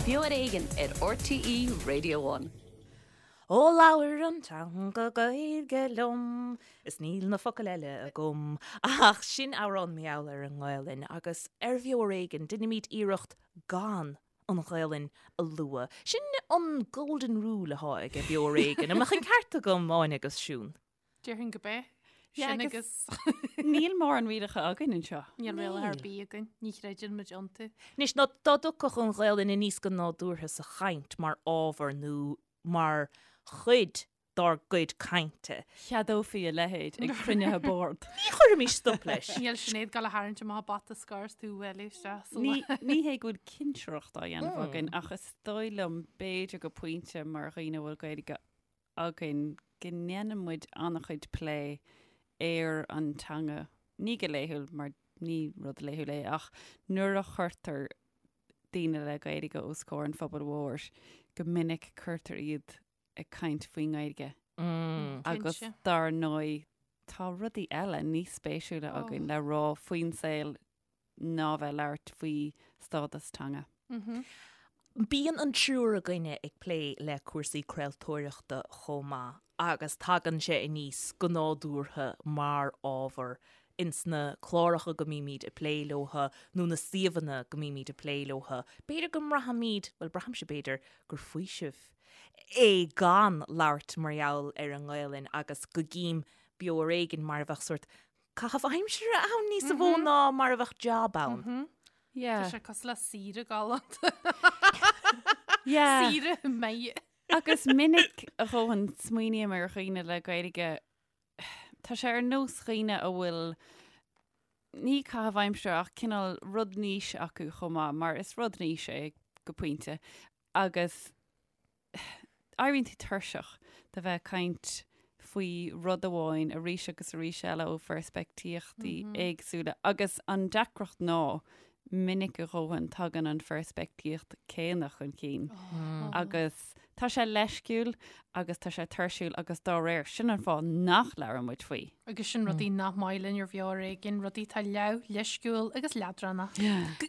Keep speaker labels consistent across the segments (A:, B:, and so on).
A: Beo ar Éigean ar RTÉ Radio One.
B: Ó labhair an teanga Gaeilge liom is níl na focail eile agam ach sin amhrán mar gheall ar an nGaelainn agus ar Bheo ar Éigean deinimid iarracht gan an Ghaelainn a lua. Sin an golden rule athá ag Beo ar Éigean. An mbeadh an ceart agam, Áine agus Siún?
C: Déarfainn go b'é. Sin agus.
D: Níl mórán rialacha againn anseo.
C: Níl rialacha ar bith againn. Ní chreideann muid iontu.
B: Anois, ná dá dtiocfadh an Ghaelainn aníos go nádúrtha sa chaint mar ábhar nó mar chuid dár gcuid cainte.
D: Cheadófaí a leithéid ag cruinnithe boird.
B: Ní chuirfimis stop leis.
C: Níl Sinéad ag gabháil a tharraingt amach a bata scoir is tú a bhualadh isteach sa
D: Ní ní hé go bhfuil cinsireacht á dhéanamh againn ach is dóigh liom b'fhéidir go pointe mar dhaoine a bhfuil Gaeilge againn go ndéanann muid an-chuid plé ar an teanga, ní go laethúil mar ní rud laethúil é ach nuair a chuirtear daoine le Gaeilge os comhair an phobail mhóir, go minic cuirtear iad ag caint faoin nGaeilge. Agus dar ndóigh tá rudaí eile níos spéisiúla againn le rá faoin saol ná bheith ag labhairt faoi stádas teanga.
B: Bíonn an triúr againne ag plé le cúrsaí craoltóireachta chomh maith agus tagann sé aníos go nádúrtha mar ábhar ins na cláracha go mbímid ag plé leotha nó na suíomhanna go mbímid ag plé leotha. B'fhéidir go mbraithimid, bhuel braithimse b'fhéidir, gur faoiseamh é gan labhairt mar gheall ar an nGaelainn agus go gcím Beo Ar Éigean mar a bheadh sórt caitheamh aimsire ann níos mó ná mar a bheadh job ann.
C: Yeah. Tá sé cosúil le saoire galánta.
D: Yeah.
C: Saoire maith.
D: Agus minic a dhóthain smaoiním ar dhaoine le Gaeilge, tá sé ar nós dhaoine a bhfuil ní caitheamh aimsire ach cineál rud niche acu chomh maith, mar is rud niche é go pointe. Agus éiríonn tú tuirseach de bheith ag caint faoi rud amháin arís agus arís eile ó pheirspictíochtaí éagsúla agus an deacracht ná minic a dhóthain tagann an pheirspictíocht céanna chun cinn agus tá sé leisciúil agus tá sé tuirsiúil agus dá réir sin an fáth nach labhrann muid faoi.
C: Agus sin rudaí nach maith linn ar Bheo Ar Éigean, rudaí atá leamh, leisciúil agus leadránach.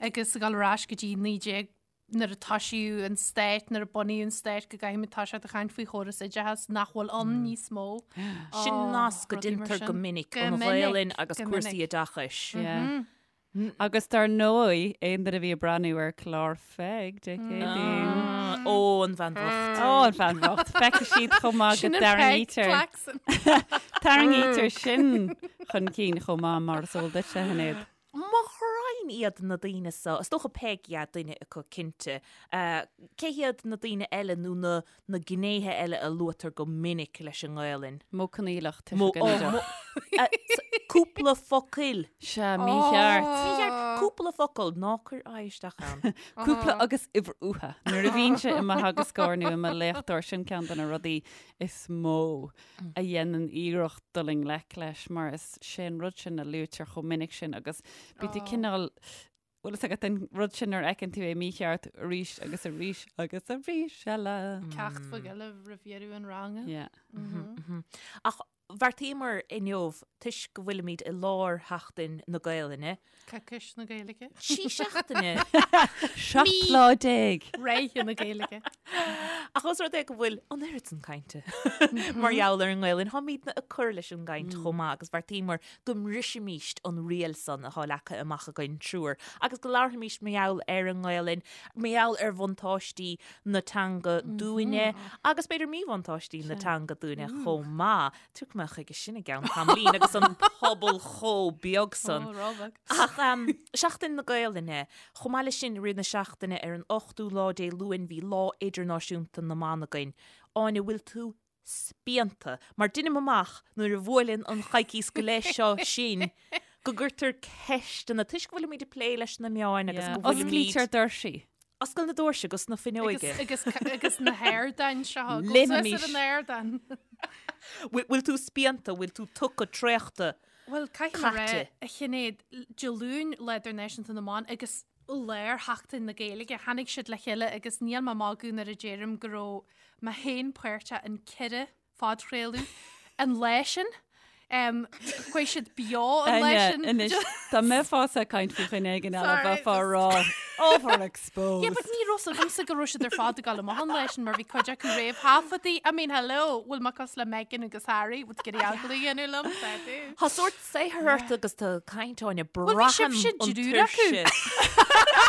C: Agus ag dul ar ais go dtí 19 nuair a toisíodh an stát, nuair a bunaíodh an stát, go gcaithfimid toiseacht ag caint faoi chóras oideachais nach bhfuil ann níos mó.
B: Sin nasc go deintear go minic, an Ghaelainn agus cúrsaí oideachais.
D: Agus dar ndóigh, aon duine a bhí ag breathnú ar chlár Pheig Dé Céadaoin.
B: Ó, an bhean bhocht.
D: Ó, an bhean bhocht. Feicfidh siad chomh maith go dtarraingítear. Tarraingítear sin chun cinn chomh maith mar is eol duit, a Shinéad.
B: Mo ghraidhin iad na daoine so, is dócha Peig, yeah, duine acu cinnte. Cé hiad na daoine eile nó na na gnéithe eile a luaitear go minic leis an nGaelainn?
D: Modh coinníollach, tuiseal ginideach.
B: Cúpla focail.
D: Sea, mícheart.
B: Mícheart. Cúpla focal, ná cuir aghaidh isteach ann.
D: Cúpla agus uimhir uatha. Nuair a bhínnse i mo theagascóir nó i mo léachtóir, sin ceann de na rudaí is mó. a dhéanann iarracht dul i ngleic leis mar is sé an rud sin a luaitear chomh minic sin agus bíonn tú cineál bhfuil fhios agat an rud sin nuair a fheiceann tú é mícheart arís agus arís agus arís eile.
C: Ceacht bheag eile roimh dheireadh an ranga.
D: Yeah.
B: Ach bheartaíomar inniu, toisc go bhfuilimid i lár Sheachtain na Gaelainne,
C: Coicís na Gaeilge.
B: Trí seachtaine.
D: 17 lá.
C: Ráithe na Gaeilge.
B: Ach os rud é go bhfuil an oiread san cainte mar gheall ar an nGaelainn, táimidne ag cur leis an gcaint chomh maith agus bheartaíomar go mbrisfimíst an riail san atá leagtha amach againn triúr agus go labharfaimíst mar gheall ar an nGaelainn, mar gheall ar bhuntáistí na teanga dúinne agus b'fhéidir míbhuntáistí na teanga dúinne chomh maith. Tiocfaidh mé chuige sin i gceann tamaillín agus an pobal chomh beag san.
C: Ó, róbheag.
B: Ach Seachtain na Gaelainne, chomh maith leis sin i rith na seachtaine ar an ochtú lá Dé Luain bhí Lá Idirnáisiúnta na mBan againn. Áine, bhfuil tú spíonta? Mar deinim amach nuair a bhuaileann an choicíos go leith seo sinn go gcuirtear ceisteanna, toisc go bhfuilimid ag plé leis na meáin agus go bhfuilimid...
D: Osclaítear doirsí.
B: Oscail na doirse agus na fuinneoige.
C: Agus, agus na hardáin seo. Go suas ar an ardán.
B: Bhfuil tú spíonta, bhfuil tú tugtha traochta,
C: Bhuel, caithfidh mé a rá, a Shinéad, Dé Luain, Lá Idirnáisiúnta na mBan, agus lár Sheachtain na Gaeilge, tháinig siad le chéile agus níl mé ag magadh nuair a deirim go raibh mé féin páirteach in ceithre phodchraoladh an lá sin. Um, chuaigh siad beo an lá sin.
D: Anois, dá mbeifeása ag caint faoi dhuine éigin eile bheifeá ag rá overexposed.
C: Yeah, but ní raibh fhios agamsa go raibh siad ar fad ag dul amach an lá sin mar bhí cuid acu réamhthaifeadtaí. I mean, hello, bhfuil mé cosúil le Meghan agus Harry, bhfuil tú ag iarraidh agallamh a dhéanamh liom? Tá tú.
B: Tá sórt saothar ort agus tú ag caint Áine
C: Bhuel, bhí
B: braithim
C: sibhse
B: an
C: triúr acu.
B: tuirse.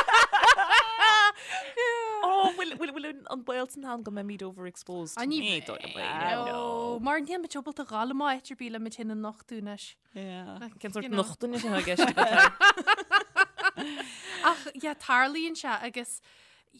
B: Ó, bhfuil bhfuil bhfuil an baol san ann go mbeimid overexposed?
C: Ní
B: Ní dóigh liom é,
C: No, mar níl muid ábalta a ghabháil amach áit ar bith le muid féin a nochtadh anois.
D: Yeah.
B: Cén sórt
C: You know.
B: nochtadh atá i gceist agat?
C: Ach yeah, tarlaíonn sé agus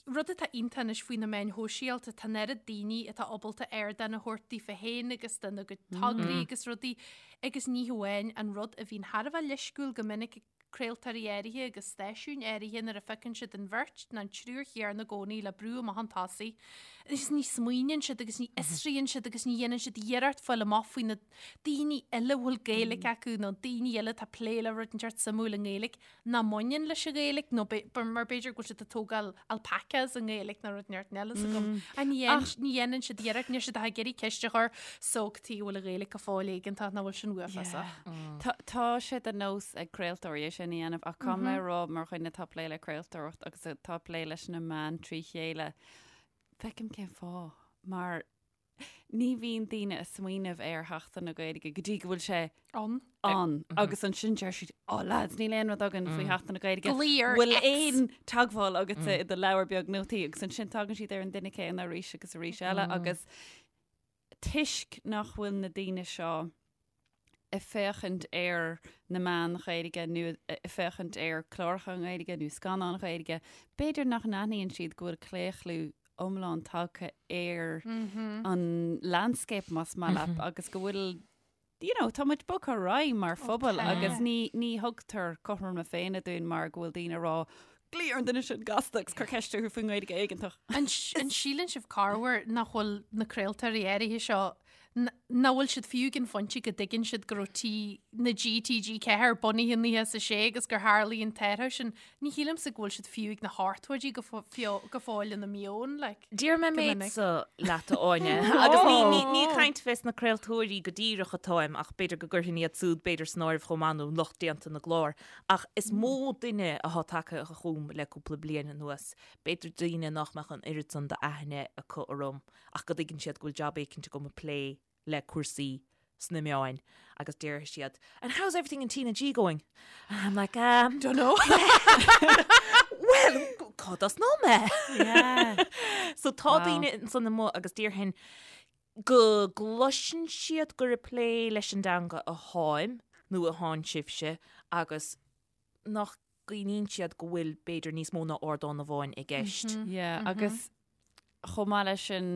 C: rud atá iontach anois faoi na meáin shóisialta, tá an oiread daoine atá ábalta ardán a thabhairt daofa féin agus dona gcuid tograí agus rudaí agus ní hamháin an rud a bhíonn thar a bheith leisciúil go minic ag craoltóirí áirithe agus stáisiúin áirithe nuair a feiceann siad an bheirt nó an triúr chéanna i gcónaí le brú amach chun tosaigh agus ní smaoiníonn siad agus ní fhiosraíonn siad agus ní dhéanann siad iarracht fáil amach faoi na daoine eile a bhfuil Gaeilge acu nó daoine eile atá ag plé le rud inteacht suimiúil i nGaeilge nach mbaineann leis an Ghaeilge nó mar b'fhéidir go bhfuil siad ag tógáil alpacas i nGaeilge nó rud inteacht eile sa gcum. Ach ní ní dhéanann siad iarracht, níl siad ach ag iarraidh ceist a chur so cad chuige a bhfuil an Ghaeilge go fóill éigeantach nach bhfuil sin uafásach.
D: Tá tá sé de nós ag craoltóirí é sin a dhéanamh ach caithfidh mé a rá mar dhuine atá ag plé le craoltóireacht agus atá ag plé leis na meáin trí chéile, feicim cén fáth mar Ní bhíonn daoine ag smaoineamh ar Sheachtain na Gaeilge go dtí go bhfuil sé
C: ann.
D: ann agus ansin deir siad, oh lads, níl aon rud againn faoi Sheachtain na Gaeilge.
C: Glaoigh ar
D: Bhfuil
C: X.
D: aon teagmháil agatsa i do leabhar beag nótaí agus ansin tagann siad ar an duine céanna arís agus arís eile agus toisc nach bhfuil na daoine seo ag féachaint ar na meáin Ghaeilge nó ag féachaint ar cláracha Gaeilge nó scannáin Ghaeilge, b'fhéidir nach n-aithníonn siad go bhfuil claochlú iomlán tagtha ar an landscape más maith leat agus go bhfuil you know, tá muid bogtha ar aghaidh mar phobal agus ní, ní thugtar cothrom na Féinne dúinn mar go bhfuil daoine ag rá glaoigh ar an duine sin gasta agus cuir ceist orthu faoin nGaeilge éigeantach.
C: An síleann sibh corruair nach bhfuil na craoltóirí áirithe seo nach bhfuil siad fiú ag an phointe go dtuigeann siad go raibh T na G TG4 bunaithe in 96 agus gur tharlaigh an t-athrú sin. Ní shílimse go bhfuil siad fiú ag na hochtóidí go go fóill ina meon, like.
B: Déarfaidh mé
C: Go
B: méid
C: minic.
B: so leat a Áine agus ní ní ní ag caint fés na craoltóirí go díreach atáim ach b'fhéidir go gcuirfinn iad súd b'fhéidir san áireamh chomh maith nó lucht déanta na gclár ach is mó duine athá tagtha chugam le cúpla bliain anuas, b'fhéidir daoine nach mbeadh an oiread san d'aithne acu orm ach go dtuigeann siad go bhfuil jab éicint agam ag plé le cúrsaí sna meáin agus déarfaidh siad And how's everything in TnaG going? And I'm like, um,
C: Don't know.
B: well, cá dtosnóidh mé?
D: Yeah.
B: So tá
D: Wow.
B: daoine ansan amuigh agus déarfainn go gcloiseann siad gur ag plé leis an dteanga atháim nó athánn sibhse agus nach gcuimhníonn siad go bhfuil b'fhéidir níos mó ná ardán amháin i gceist.
D: Yeah, agus chomh maith leis sin,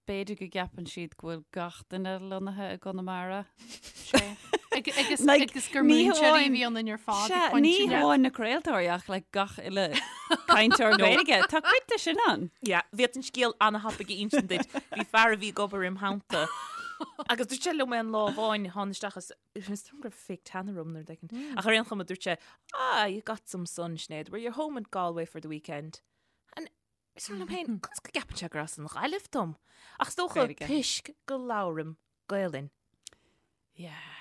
D: b'fhéidir go gceapann siad go bhfuil gach duine lonnaithe i gConamara.
C: Agus
D: Like,
C: agus gur
D: ní
C: múinteoirí a
D: hamháin-
C: bhí ionainn ar fad
D: Sea,
C: ag pointe
D: ní
C: le-
D: hamháin na craoltóirí ach like gach uile cainteoir Gaeilge. Tá cuid de sin ann.
B: Yeah, bhí an scéal an-thapaidh a insint duit. Bhí fear a bhí ag obair im theannta. Agus dúirt sé liom aon lá amháin, tháinig isteach is Is dóigh go raibh fake tan orm nó rud éicint. Ach ar aon chuma dúirt sé, Ah, you got some sun, Sinéad. Were you home in Galway for the weekend? And is liom féin, conas go gceapann sé gur as an Ghaillimh dom? Ach is dócha
D: Gaeilge.
B: toisc go labhraim Gaelainn.
D: Yeah.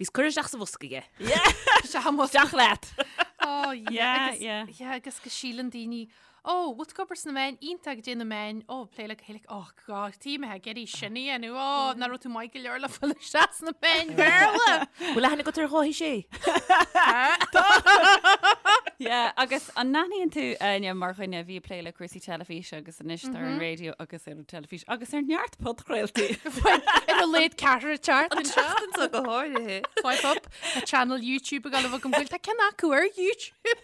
B: Bhíos curtha isteach sa bhosca aige.
D: Isteach leat.
C: Oh, yeah.
D: Yeah,
C: agus,
D: yeah.
C: yeah, agus go síleann daoine, oh, bhfuil tú ag obair sna meáin, iontach goidé na meáin, oh, plé le Gaeilge, oh, God, tí mé ag iarraidh sin a dhéanamh, oh, nach raibh tú maith go leor le fáil isteach sna meáin Bhéarla.
B: Bhfuil aithne agat ar Dháithí Sé?
D: Yeah, agus an n-aithníonn tú, Áine, mar dhuine a bhí ag plé le cúrsaí teilifíse agus anois ar an raidió agus ar an teilifís agus ar neart podchraoltaí.
C: Ar a laghad ceathrar teacht anseo.
B: Seachtain seo go háirithe.
C: Swipe up a channel YouTube ag gabháil a bheith agam bhfuil tá ceann acu ar YouTube.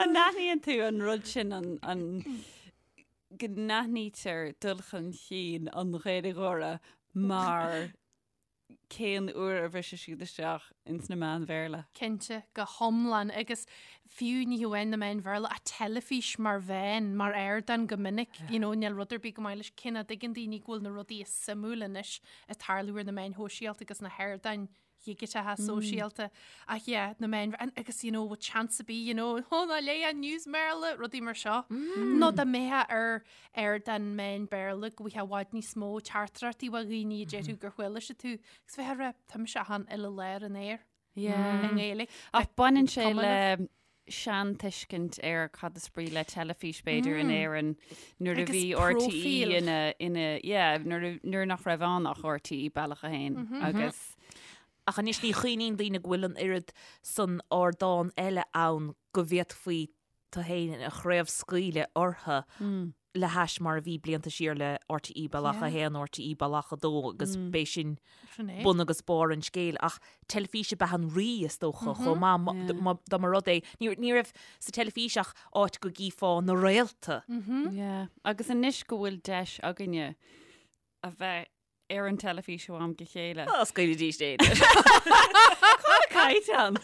D: An n-aithníonn tú an rud sin an, an go n-aithnítear dul chun cinn an Ghaeilgeora mar cén uair a bhriseann siad isteach ins na meáin Bhéarla?
C: Cinnte, go hiomlán agus fiú ní hamháin na meáin Bhéarla ach teilifís mar mheán, mar ardán go minic, you know, níl rud ar bith go maith leis cé nach dtuigeann daoine go bhfuil na rudaí is suimiúla anois ag tarlú ar na meáin shóisialta agus na hardáin. dhigiteacha sóisialta ach yeah, na meáin agus you know, bhfuil chance ar bith, you know, oh, ná léigh an news mBéarla, rudaí mar seo. Nó dá mbeifeá ar ar den meán Béarla go bhfaighfeá i bhfad níos mó teachtaireachtaí ó dhaoine a déarfadh gur chuala siad tú agus bheifeá ag rá tá mise achan uile lá ar an aer
D: Yeah.
C: i nGaeilge.
D: Ach baineann sé
C: cuma
D: le seantuiscint ar cad is brí le teilifís b'fhéidir in Éirinn nuair a
C: Agus
D: bhí RTÉ
C: próifíl.
D: ina ina yeah, nuair a- nuair nach raibh ann ach RTÉ Bealach a hAon agus
B: Ach anois ní chuimhníonn daoine go bhfuil an oiread san ardán eile ann go bhféadfaí tú féin a chraobhscaoileadh orthu le hais mar a bhí blianta siar le RTÉ Bealach 1, RTÉ Bealach 2 agus b'é sin bun agus barr an scéil. Ach teilifís ab ea an rí, is dócha, chomh maith, dá mba rud é. Ní raibh sa teilifís ach áit go gcífeá na réalta.
D: Yeah. Agus anois go bhfuil deis againne a bheith ar an teilifís ó am go chéile.
B: Á, scaoilidís é.
D: Caighdeán.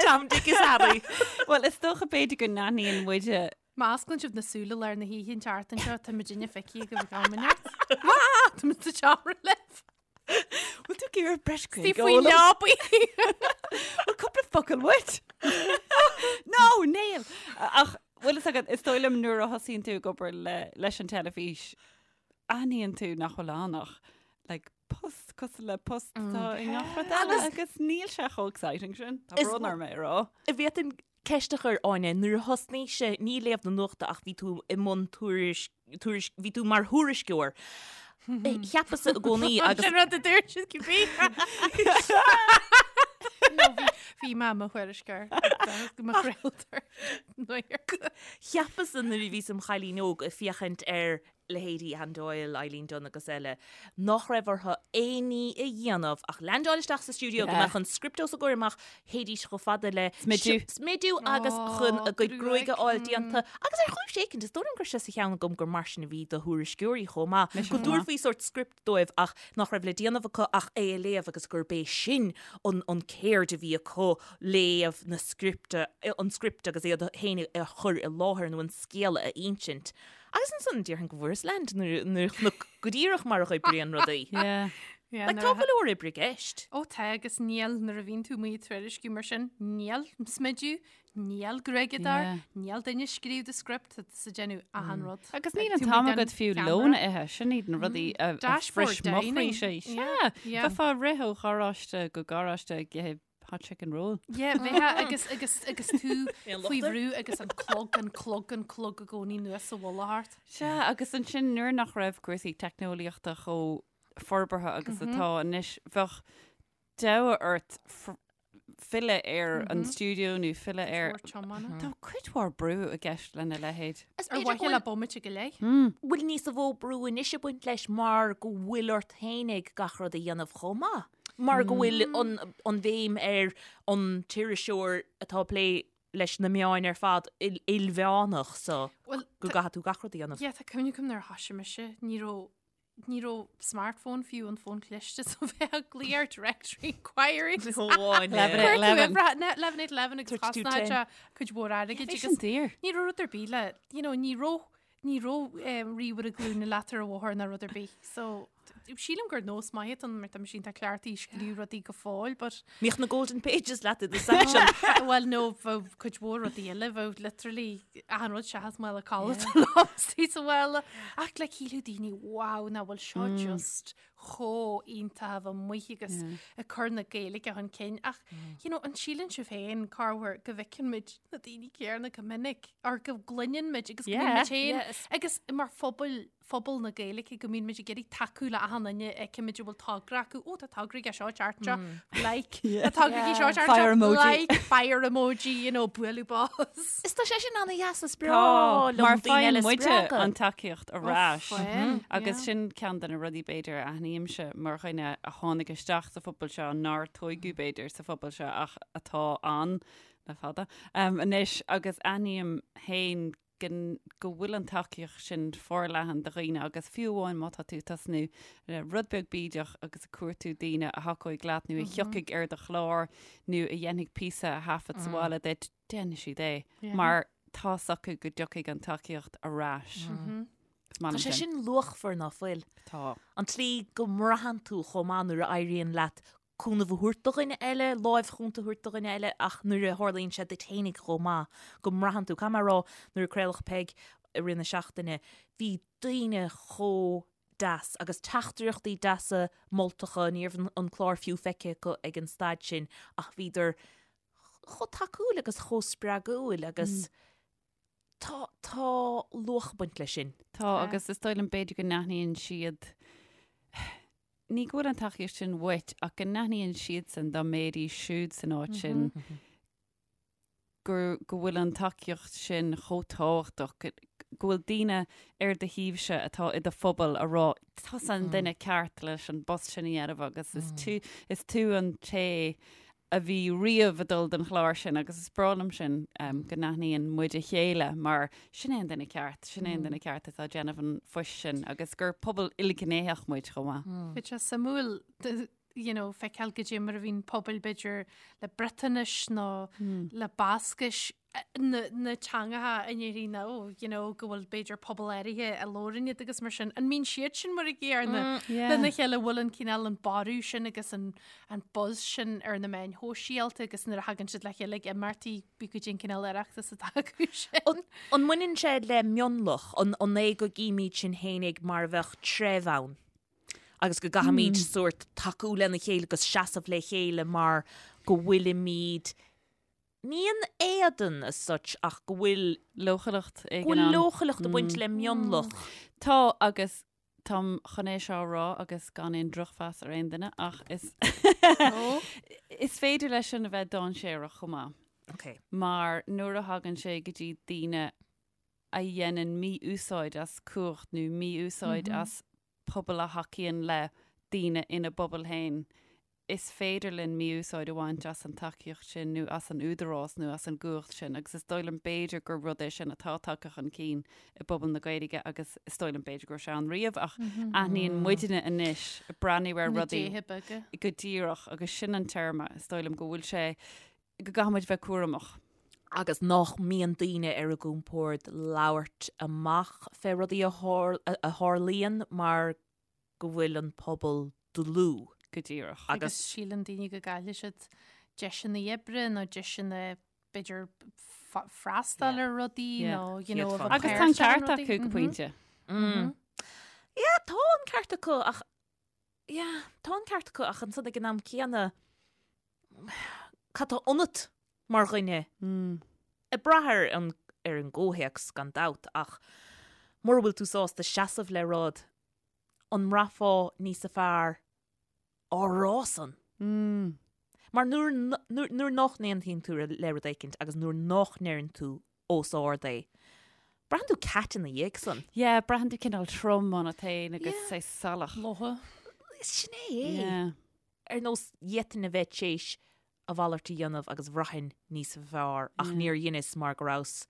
B: Tom, Dick is Harry.
D: Bhuel, is dócha b'fhéidir go n-aithníonn muide
C: Má osclaíonn sibh na súile lár na hoíche an tseachtain seo, tá muid inne feicthe agaibh ag am inteacht. Tá muid sa tseomra libh.
D: Bhfuil tú ag iarraidh breis
C: Tí faoi leabaí.
D: Bhfuil cúpla focal uait? No, níl! Ach bhfuil fhios agat, is dóigh liom nuair a thosaíonn tú ag obair leis an teilifís, aithníonn tú nach bhfuil ann ach like, post cosúil le post atá i ngach rud eile agus níl sé chomh exciting sin. Tá brón orm é a rá.
B: Bhféadfainn ceist a chur, Áine, nuair a thosnaís, ní léamh na nuachta ach bhí tú i mbun tuairisc, tuairisc, bhí tú mar thuairisceoir. Cheapas-sa i gcónaí agus.
C: Sin rud a dúirt siad cibé. No, bhí, bhí mé i mo thuairisceoir, mo chraoltóir.
B: Cheapas-sa nuair a bhíos im chailín óg ag féachaint ar leithéidí Anne Doyle, Eileen Dunne agus eile, nach raibh orthu aon ní a dhéanamh ach leaindeáil isteach sa stiúideo go mbeadh an script os a gcomhair amach, théidís chomh fada le
D: Smidiú.
B: smidiú agus chun a gcuid gruaige a fháil déanta. Agus ar chúis éicint, is dóigh liom go raibh sé sa cheann agam gur mar sin a bhí do thuairisceoirí chomh maith, go dtabharfaí sórt script dóibh ach nach raibh le déanamh acu ach é a léamh agus gurb é sin an an céird a bhí acu, léamh na scripte, an script agus iad féin a chur i láthair nó an scéal a insint. Agus ansan déarfainn go bhfuaireas leaint nuair a chonac go díreach mar a oibríonn rudaí.
D: Yeah.
C: Yeah,
B: Like,
C: nuair
B: tá
C: a
B: go leor oibre i gceist.
C: Ó tá agus níl nuair a bhíonn tú amuigh ag tuairisciú mar sin, níl smidiú, níl gruaigeadóir,
D: Yeah.
C: níl duine ag scríobh do script, tá tusa ag déanamh achan rud.
D: Agus
C: Like,
D: níl an
C: tú
D: t-am
C: amuigh den
D: agat fiú
C: ceamara.
D: lón a ithe, sin iad na rudaí a a
C: Dashboard
D: bhris mo
C: dining.
D: chroí sé.
C: Yeah,
D: Sea,
C: yeah.
D: bheifeá ag rith ó gharáiste go garáiste ag ithe hot chicken roll.
C: Yeah, bheifeá agus agus agus tú
B: Aon
C: faoi
B: locht air?
C: bhrú agus an clog, an clog, an clog i gcónaí anuas sa mhullach ort.
D: Sea, agus ansin nuair nach raibh cúrsaí teicneolaíochta chomh forbartha agus atá anois, bheadh deabhadh ort filleadh ar an stiúideo nó filleadh ar.
C: Mhór tiomána.
D: Tá cuid mhór brú i gceist lena leithéid.
B: Is
C: Ar
B: b'fhéidir
C: mhaithe
B: go
C: le bomaite go leith.
B: bhfuil níos mó brú anois ag baint leis mar go bhfuil ort fhéinig gach rud a dhéanamh chomh maith. Mar go bhfuil an bhéim ar an t-iriseoir atá ag plé leis na meáin ar fad ilmheánach so go gcaithfidh tú gach rud a dhéanamh.
C: Yeah, tá cuimhne agam nuair a thoisigh mise, ní raibh ní raibh smartphone fiú an fón cliste so bheifeá ag glaoch ar directory inquiries. 11 8 11 agus chosnaigh sé cuid mhór airgid agus ní raibh rud ar bith le, you know, ní raibh Ní raibh ríomhaire glúine leat ar an bhóthar ná rud ar bith. So, sílim gur nós maith atá ann mar tá mise iontach cleachtaithe ag scríobh rudaí go fóill, but.
B: Bhíodh na golden pages leat i do satchel.
C: Bhuel, no, bheadh cuid mhór rudaí eile, bheadh literally achan rud seachas mála codlata liom istigh sa mhála. Ach like shílfeadh daoine, wow, nach bhfuil seo just chomh iontach a bheith amuigh agus ag cur na Gaeilge chun cinn ach you know, an síleann sibh féin corruair go bhfeiceann muid na daoine céanna go minic or go gcluineann muid agus go mbíonn muid féin agus mar phobal phobal na Gaeilge go mbíonn muid ag iarraidh tacú le achan duine a fheiceann muid a bhfuil togra acu ó tá togra aige seo ceart seo like tá togra aige seo ceart
D: Fire
C: seo
D: emoji.
C: like fire emoji you know bualadh bos.
B: Is tá sé sin ana-dheas is breá
D: Tá,
B: liom
D: mar
B: daoine
D: faigheann
B: eile a
D: muide
B: spreagadh.
D: an tacaíocht ar ais.
C: Faigheann,
D: Agus
C: yeah.
D: sin ceann de na rudaí b'fhéidir a aithnímse mar dhuine a tháinig isteach sa phobal seo, nár tóigeadh b'fhéidir sa phobal seo ach atá ann le fada anois agus aithním féin go go bhfuil an tacaíocht sin forleathan do dhaoine agus fiú amháin má tá tú ag tosnú le rud beag bídeach agus ag cuartú daoine a thacóidh leat nó a thiocfaidh ar do chlár nó a dhéanfaidh píosa a thaifead sa bhaile duit, déanfaidh siad é mar tá's acu go dtiocfaidh an tacaíocht ar ais. Is maith
B: Tá
D: liom
B: sé
D: sin.
B: sin luachmhar ná fuil.
D: Tá.
B: An tslí go mbraitheann tú chomh maith nuair a éiríonn leat. cúnamh a thabhairt do dhuine eile, láimh chúnta a thabhairt do dhuine eile ach nuair a tharlaíonn sé duit fhéinig chomh maith, go mbraitheann tú, caithfidh mé a rá, nuair a craoladh Peig i rith na seachtaine, bhí daoine chomh deas agus teachtaireachtaí deasa moltacha, ní raibh an clár fiú feicthe acu ag an staid sin ach bhíodar chomh tacúil agus chomh spreagúil agus tá, tá luach ag baint leis sin.
D: Tá agus is dóigh liom b'fhéidir go n-aithníonn siad, ní go bhfuil an tacaíocht sin uait ach go n-aithníonn siadsan dá mbeidís siúd san áit sin gur, go bhfuil an tacaíocht sin chomh tábhachtach, go, go bhfuil daoine ar do thaobhse atá i do phobal a rá, tusa an duine ceart leis an bpost sin a dhéanamh agus is tú, is tú an té a bhí riamh ag dul don chlár sin agus is breá liom sin go n-aithníonn muid a chéile mar sin é an duine ceart, sin é an duine ceart atá ag déanamh an phoist sin agus gur pobal ilghnéitheach muid chomh maith.
C: Bhí sé suimiúil you know, feiceáil goidé mar a bhíonn pobail b'fhéidir le Briotáinis nó le Bascais na, na teangacha in Éirinn nó you know, go bhfuil b'fhéidir pobal áirithe a labhrann iad agus mar sin. An mbíonn siad sin mar a gcéanna lena chéile bhfuil an cineál an borradh sin agus an, an buzz sin ar na meáin shóisialta agus nuair a thagann siad le chéile ag imeachtaí bí goidé an cineál Oireachtas atá acu
B: sin. An, an mbaineann sé le mionlach, an, an é go gcímid sinn fhéinig mar a bheadh treibh ann? agus go gcaithfimid sórt tacú lena chéile agus seasamh le chéile mar go bhfuilimid ní in éadan as such ach go bhfuil
D: leochaileacht
B: éigin ann. Go bhfuil leochaileacht ag baint le mionlach.
D: Tá agus táim chun é seo a rá agus gan aon drochmheas ar aon duine ach is is féidir leis sin a bheith dainséarach chomh maith.
B: Okay.
D: Mar nuair a thagann sé go dtí daoine a dhéanann mí-úsáid as cumhacht nó mí-úsáid as pobal a thacaíonn le daoine ina bpobal féin, is féidir linn mí-úsáid a bhaint as an tacaíocht sin nó as an údarás nó as an gcumhacht sin agus is dóigh liom b'fhéidir gur rud é sin atá tagtha chun cinn i bpobal na Gaeilge agus is dóigh liom b'fhéidir go raibh sé ann riamh ach aithníonn muidne anois ag breathnú ar rudaí go díreach agus sin an téarma is dóigh liom go bhfuil sé go gcaithfidh muid bheith cúramach.
B: agus nach mbíonn daoine ar a gcompord labhairt amach fé rudaí a tharlaíonn mar go bhfuil an pobal dlúth.
D: Go díreach.
C: Agus síleann daoine go gcaillfidh siad deiseanna oibre nó deiseanna b'fhéidir freastal ar rudaí nó you know
D: Agus tá an ceart acu go pointe.
B: Yeah, tá an ceart acu ach yeah, tá an ceart acu ach ansan ag an am céanna cad tá ionat mar dhuine? Ag brath ar an ar an gcomhthéacs gan dabht ach mura bhfuil tú sásta seasamh le rud, an mbraithfeá níosa fearr á rá san? Mar nuair nuair nach n-aontaíonn tú le rud éicint agus nuair nach ndeireann tú os ard é, braitheann tú cat ina dhiaidh san.
D: Yeah, braitheann tú cineál trom ionat féin agus é salach.
C: Lotha.
B: Sin é é. Yeah. Ar nós d'fhéadfainn a bheith téis a mhalairt a dhéanamh agus bhraithfinn níos fearr ach níor dheineas mar go rabhas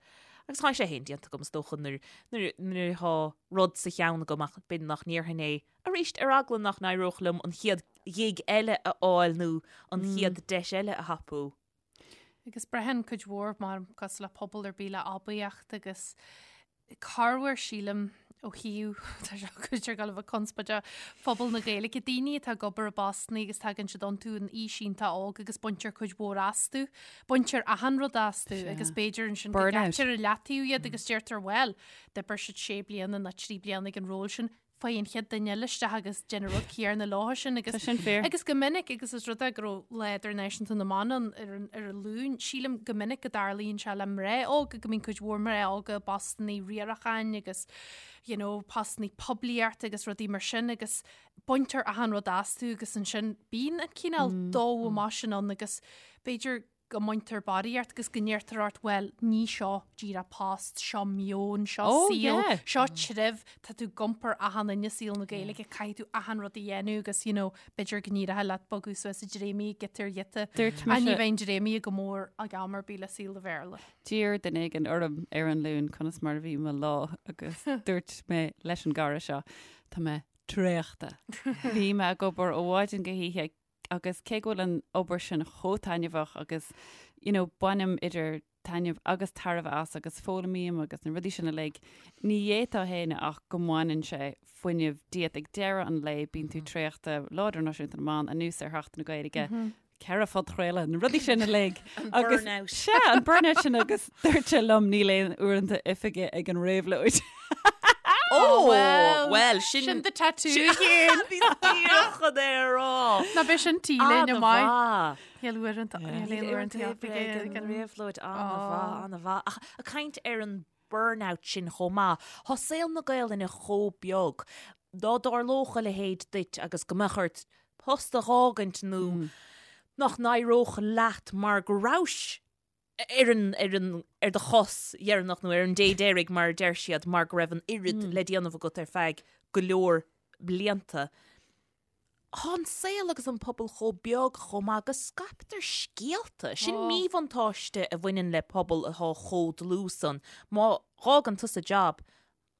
B: agus tá sé féin déanta agam is dócha nuair nuair nuair atá rud sa cheann agam ach b'fhéidir nach ndéarfainn é arís ar eagla nach n-éireodh liom an chéad ghig eile a fháil nó an chéad deis eile a thapú.
C: Agus braitheann cuid mhór mar cosúil le pobal ar bith le aibíocht agus corruair sílim ó thaobh tá sé cuid ar go bhfuil conspóideach phobal na Gaeilge daoine atá ag obair i bpostanna agus tagann siad iontu in aois iontach óg agus baintear cuid mhór astu, baintear achan rud astu agus b'fhéidir ansin go gcaitear i leataobh iad agus deirtear bhuel, d'oibir siad sé bliana nó trí bliana ag an ról sin, faigh an chéad duine eile isteach agus déan an rud céanna leo sin agus Tá
D: sin fíor.
C: agus go minic agus is rud é go raibh Lá Idirnáisiúnta na mBan ann ar an ar an Luan, sílim go minic go dtarlaíonn sé le mná óga go mbíonn cuid mhór mná óga i bpostanna riaracháin agus you know postanna poiblíochta agus rudaí mar sin agus baintear achan rud astu agus ansin bíonn an cineál dó amach sin ann agus b'fhéidir go mbaintear barraíocht agus go ndeirtear ort, bhuel, ní seo díreach post, seo meon, seo
D: Oh,
C: saol,
D: yeah.
C: seo treibh, tá tú ag iompar achan duine i saol na Gaeilge, caithfidh tú achan rud a dhéanamh agus, you know, b'fhéidir go n-éireoidh leat bogadh suas i dréimí, giota ar ghiota.
D: Dúirt
C: Ach ní
D: mise-
C: bheidh an dréimí go mór ag am ar bith le saol an Bhéarla.
D: D'iarr duine éigin orm ar an Luan conas mar a bhí mo lá agus dúirt mé leis an gcara seo, tá mé traochta. Bhí mé ag obair ó mhaidin go hoíche. Agus cé go bhfuil an obair sin chomh taitneamhach agus, you know, bainim idir taitneamh agus tairbhe as agus foghlaimím agus na rudaí sin uilig, ní fhéadfá a shéanadh ach go mbaineann sé fuinneamh díot. Ag deireadh an lae bíonn tú traochta, Lá Idirnáisiúnta na mBan, anuas ar Sheachtain na Gaeilge, 4 phodchraoladh, na rudaí sin uilig.
B: An burnout.
D: Sea, an burnout sin agus dúirt sé liom níl aon uaireanta oifige ag an réabhlóid.
B: Ó, well, sin...
C: Sin do tattoo féin.
B: Bhí díreach chun é a rá.
C: Ná beidh sin T-léine maith. Níl uaireanta uaireanta oifige
B: ag an réabhlóid. An-mhaith, an-mhaith. Ach ag caint ar an burnout sin chomh maith, tá saol na Gaelainne chomh beag. Dá dtarlódh a leithéid duit agus go mbeadh ort post a dh'fhágaint nó nach n-éireodh leat mar go rabhais ar an, ar an, ar do chos dheireanach nó ar an dé deiridh mar a deir siad mar go raibh an oiread le déanamh agat ar feadh go leor blianta. Tá an saol agus an pobal chomh beag chomh maith go scaiptear scéalta. Sin míbhuntáiste a bhaineann le pobal atá chomh dlúth san. Má dh'fhágann tusa jab,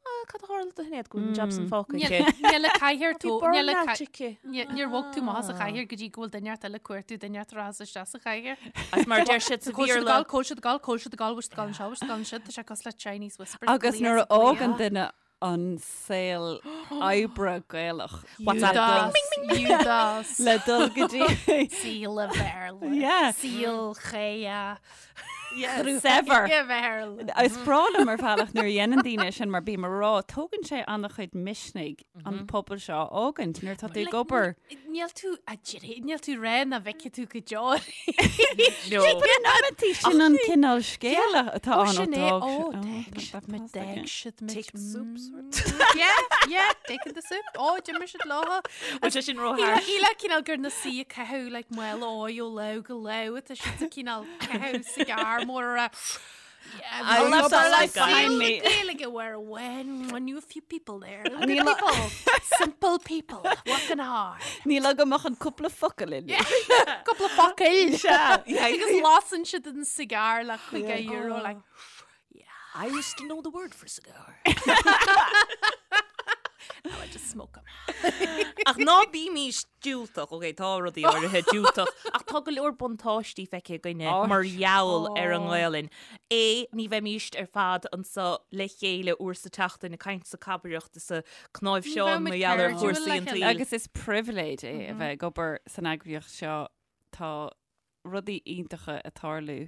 B: Ah, cad a tharla do Shinéad go bhfuil an jab san fágtha aici?
C: Níl a cathaoir
B: Bhí
C: tú, níl a
B: burnout
C: ca-
B: aici.
C: Ní- Níor bhog tú amach as an chathaoir go dtí go bhfuil duine ort eile ag cuartú duine ort a rachas isteach sa chathaoir.
B: Agus mar a deir siad sa
C: Cóil siad
B: Bhéarla,
C: gal, cóil siad gal, cóil siad gal, bhfuil siad gal anseo, bhfuil siad gal ansiúd, tá sé cosúil le Chinese whispers.
D: Agus nuair a fhágann duine an saol oibre Gaelach
B: WhatsApp.
C: Judas,
D: le dul go dtí
C: Saol a Bhéarla,
D: Yeah.
C: Saol Chéa.
D: Saibhir. Is breá liom ar bhealach nuair a dhéanann daoine sin mar bím ag rá, tógann sé an-chuid misnigh an pobal seo a fhágaint nuair atá tú ag obair.
C: Níl tú a deireadh, níl tú ré na bhfeicfidh tú go deo.
B: No.
D: In amantaí sin an cineál scéala atá ann
C: Sin é,
D: ó
C: ó,
D: d'fhág
C: d'fhág siad muid, d'fhág siad muid.
B: Take the soup, sort.
C: Yeah, yeah, taking the soup. Ó, d'imir siad leo.
B: Bhfuil sé sin ró-harsh?
C: Shílfeá cineál gur na suí ag caitheamh like mála óir ó lá go lá tá siad sa cineál caitheamh cigar mór a Yeah,
B: I left our life
D: behind me.
C: Gaeilge where when I knew a few people there. Good people, simple people, working hard.
D: Níl agam ach an cúpla focal in.
C: Cúpla focal. Agus lasann siad an cigar le €5 like
B: I used to know the word for cigar.
C: Now I just smoke 'em.
B: Ach ná bímís diúltach, ok, tá rudaí áirithe diúltach, ach tá go leor buntáistí feicthe againne mar gheall ar an nGaelainn. É, ní bheimíst ar fad anso le chéile uair sa tseachtain ag caint is ag cabaireacht is ag cnáimhseán mar gheall ar chúrsaí an tsaoil.
D: Agus is pribhléid é a bheith ag obair san eagraíocht seo. Tá rudaí iontacha ag tarlú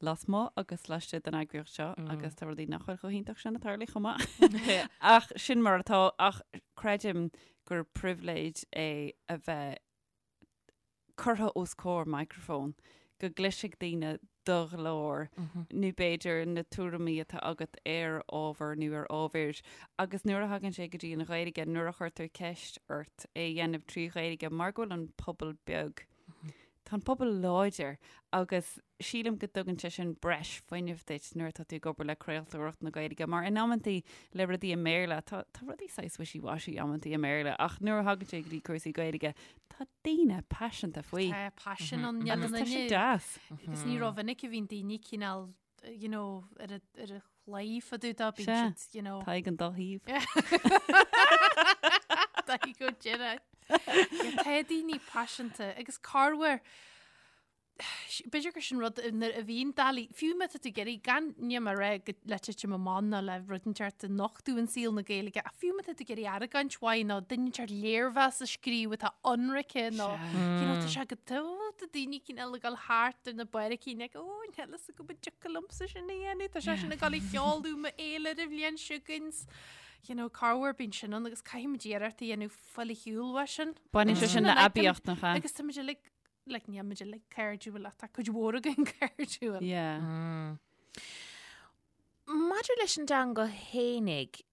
D: lasmuigh agus laistigh den eagraíocht seo agus tá rudaí nach bhfuil chomh hiontach sin ag tarlú chomh maith. Ach sin mar atá, ach creidim gur pribhléid é a bheith curtha os comhair micreafóin, go gcloisfidh daoine do ghlór nó b'fhéidir na tuairimí atá agat ar ábhar nó ar ábhair agus nuair a thagann sé go dtí an Ghaeilge, nuair a chuirtear ceist ort é a dhéanamh trí Ghaeilge mar go bhfuil an pobal beag, Tá an pobal láidir agus sílim go dtugann sé sin breis fuinnimh duit nuair atá tú ag obair le craoltóireacht na Gaeilge mar in amantaí le rudaí i mBéarla, tá tá rudaí saghas wishy-washy amantaí i mBéarla ach nuair a thagann sé go dtí cúrsaí Gaeilge tá daoine paiseanta faoi.
C: Tá paisean ann,
D: Agus tá sé deas.
C: Agus ní rómhinic a bhíonn daoine cineál you know, ar a ar a chlaí fá dtaobh dó, bíonn siad, you know.
D: Tá ag an dá thaobh.
C: Tá go deireadh. Tá daoine paiseanta agus corruair b'fhéidir gur sin rud nuair a bhíonn doiligh, fiú má tá tú ag iarraidh gan níl mé ag rá go le titim amach ná le rud inteacht a nochtadh in saol na Gaeilge, ach fiú má tá tú ag iarraidh argóint mhaith nó duine inteacht léirmheas a scríobh atá ionraice nó you know, tá sé go tá daoine cineál ag dul thart ar na barraicín ag ó níl a fhios agam an dtiocfadh liomsa sin a dhéanamh, tá sé sin ag dul a sheoladh m'fhéilire an bhliain seo chugainn. You know, corruair bíonn sin ann agus caithfimid iarracht a dhéanamh fáil ar shiúl uaidh sin.
D: Baineann sé sin le aibíocht nach ea?
C: Agus táimid uilig, like, níl muid uilig cairdiúil ach tá cuid mhór againn cairdiúil.
D: Yeah.
B: Maidir leis an dteanga fhéinig,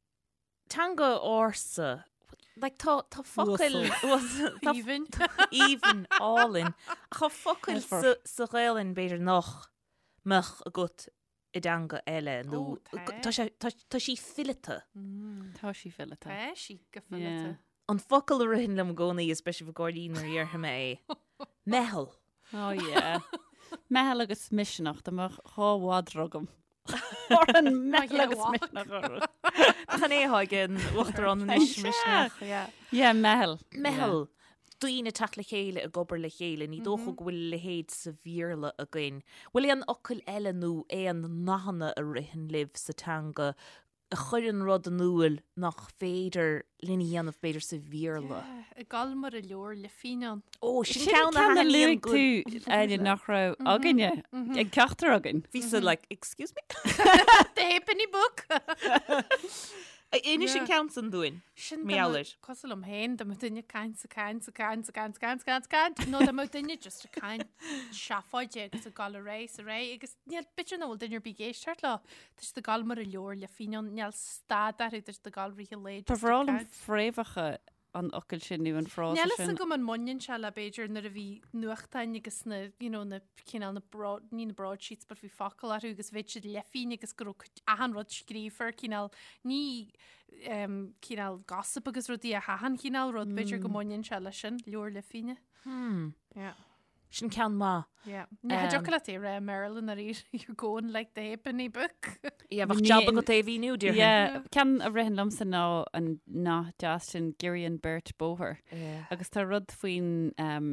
B: teanga ársa, like tá tá focail
C: Uasal. Aoibhinn.
B: Aoibhinn, álainn. Ach tá focail sa sa Ghaelainn b'fhéidir nach mbeadh agat i dteanga eile nó
C: Ó, tá.
B: tá sé tá tá sí fileata.
D: Tá sí fileata.
C: Tá sí go fileata.
D: Yeah.
B: An focal a ritheann liom i gcónaí is beidh sibh ag gáirí nuair a dhéarfaidh mé é. Meitheal.
D: Oh yeah. Meitheal agus misneach, dá mbeadh dhá mhadra agam. An meitheal agus misneach orthu.
B: Nach an é atá ag an uachtarán anois misneach.
D: Yeah, meitheal.
B: Meitheal. daoine ag teacht le chéile ag obair le chéile, ní dócha go bhfuil a leithéid sa Bhéarla againn. Bhfuil aon fhocail eile nó aon nathanna a ritheann libh sa teanga a chuireann rud in iúl nach féidir linn a dhéanamh b'fhéidir sa Bhéarla?
C: Ag gabháil mar a leabhar leithphingin ann.
B: Ó, sin
D: Sin
B: ceann a
D: ceann a
B: thaitníonn
D: luaigh tú, Áine, nach raibh againne, ag ceachtar againn.
B: Bhí-sa like, excuse me?
C: The Halfpenny Book!
B: Inis an ceann san dúinn.
C: Sin
B: Mar gheall air.
C: Cosúil liom féin, dá mbeadh duine ag caint 's ag caint 's ag caint 's ag caint 's ag caint 's ag caint 's ag caint, nó dá mbeadh duine just ag caint seafóide agus ag gabháil ar aghaidh 's ar aghaidh agus níl, b'fhéidir nach bhfuil duine ar bith ag éisteacht leo. Tá siad ag gabháil mar a leabhar leithphingin ann, níl stad orthu, tá siad ag gabháil rith an lae
D: Ba
C: just ag
D: bhreá liom
C: caint.
D: fréamhacha an fhocail sin nó an frása
C: Níl fhios
D: sin.
C: agam an mbaineann sé le b'fhéidir nuair a bhí nuachtáin agus na, you know, na cineál na broad, ní na broadsheets but bhí focail orthu agus bheadh siad leithphingin agus go raibh cuid- achan rud scríofa ar cineál, ní um, cineál gossip agus rudaí ach achan chineál rud, b'fhéidir go mbaineann sé leis sin, leabhar leithphingne.
B: Hmm.
C: Yeah.
B: Sin ceann maith.
C: Yeah. Ní thiocfadh leat é a rá i mBéarla nuair you're going like the halfpenny book.
B: Yeah, bheadh jab agat é a mhíniú, déarfainn.
D: Yeah, ceann a ritheann liomsa ná an nath deas sin Giorraíonn beirt bóthar.
B: Yeah.
D: Agus tá rud faoin um,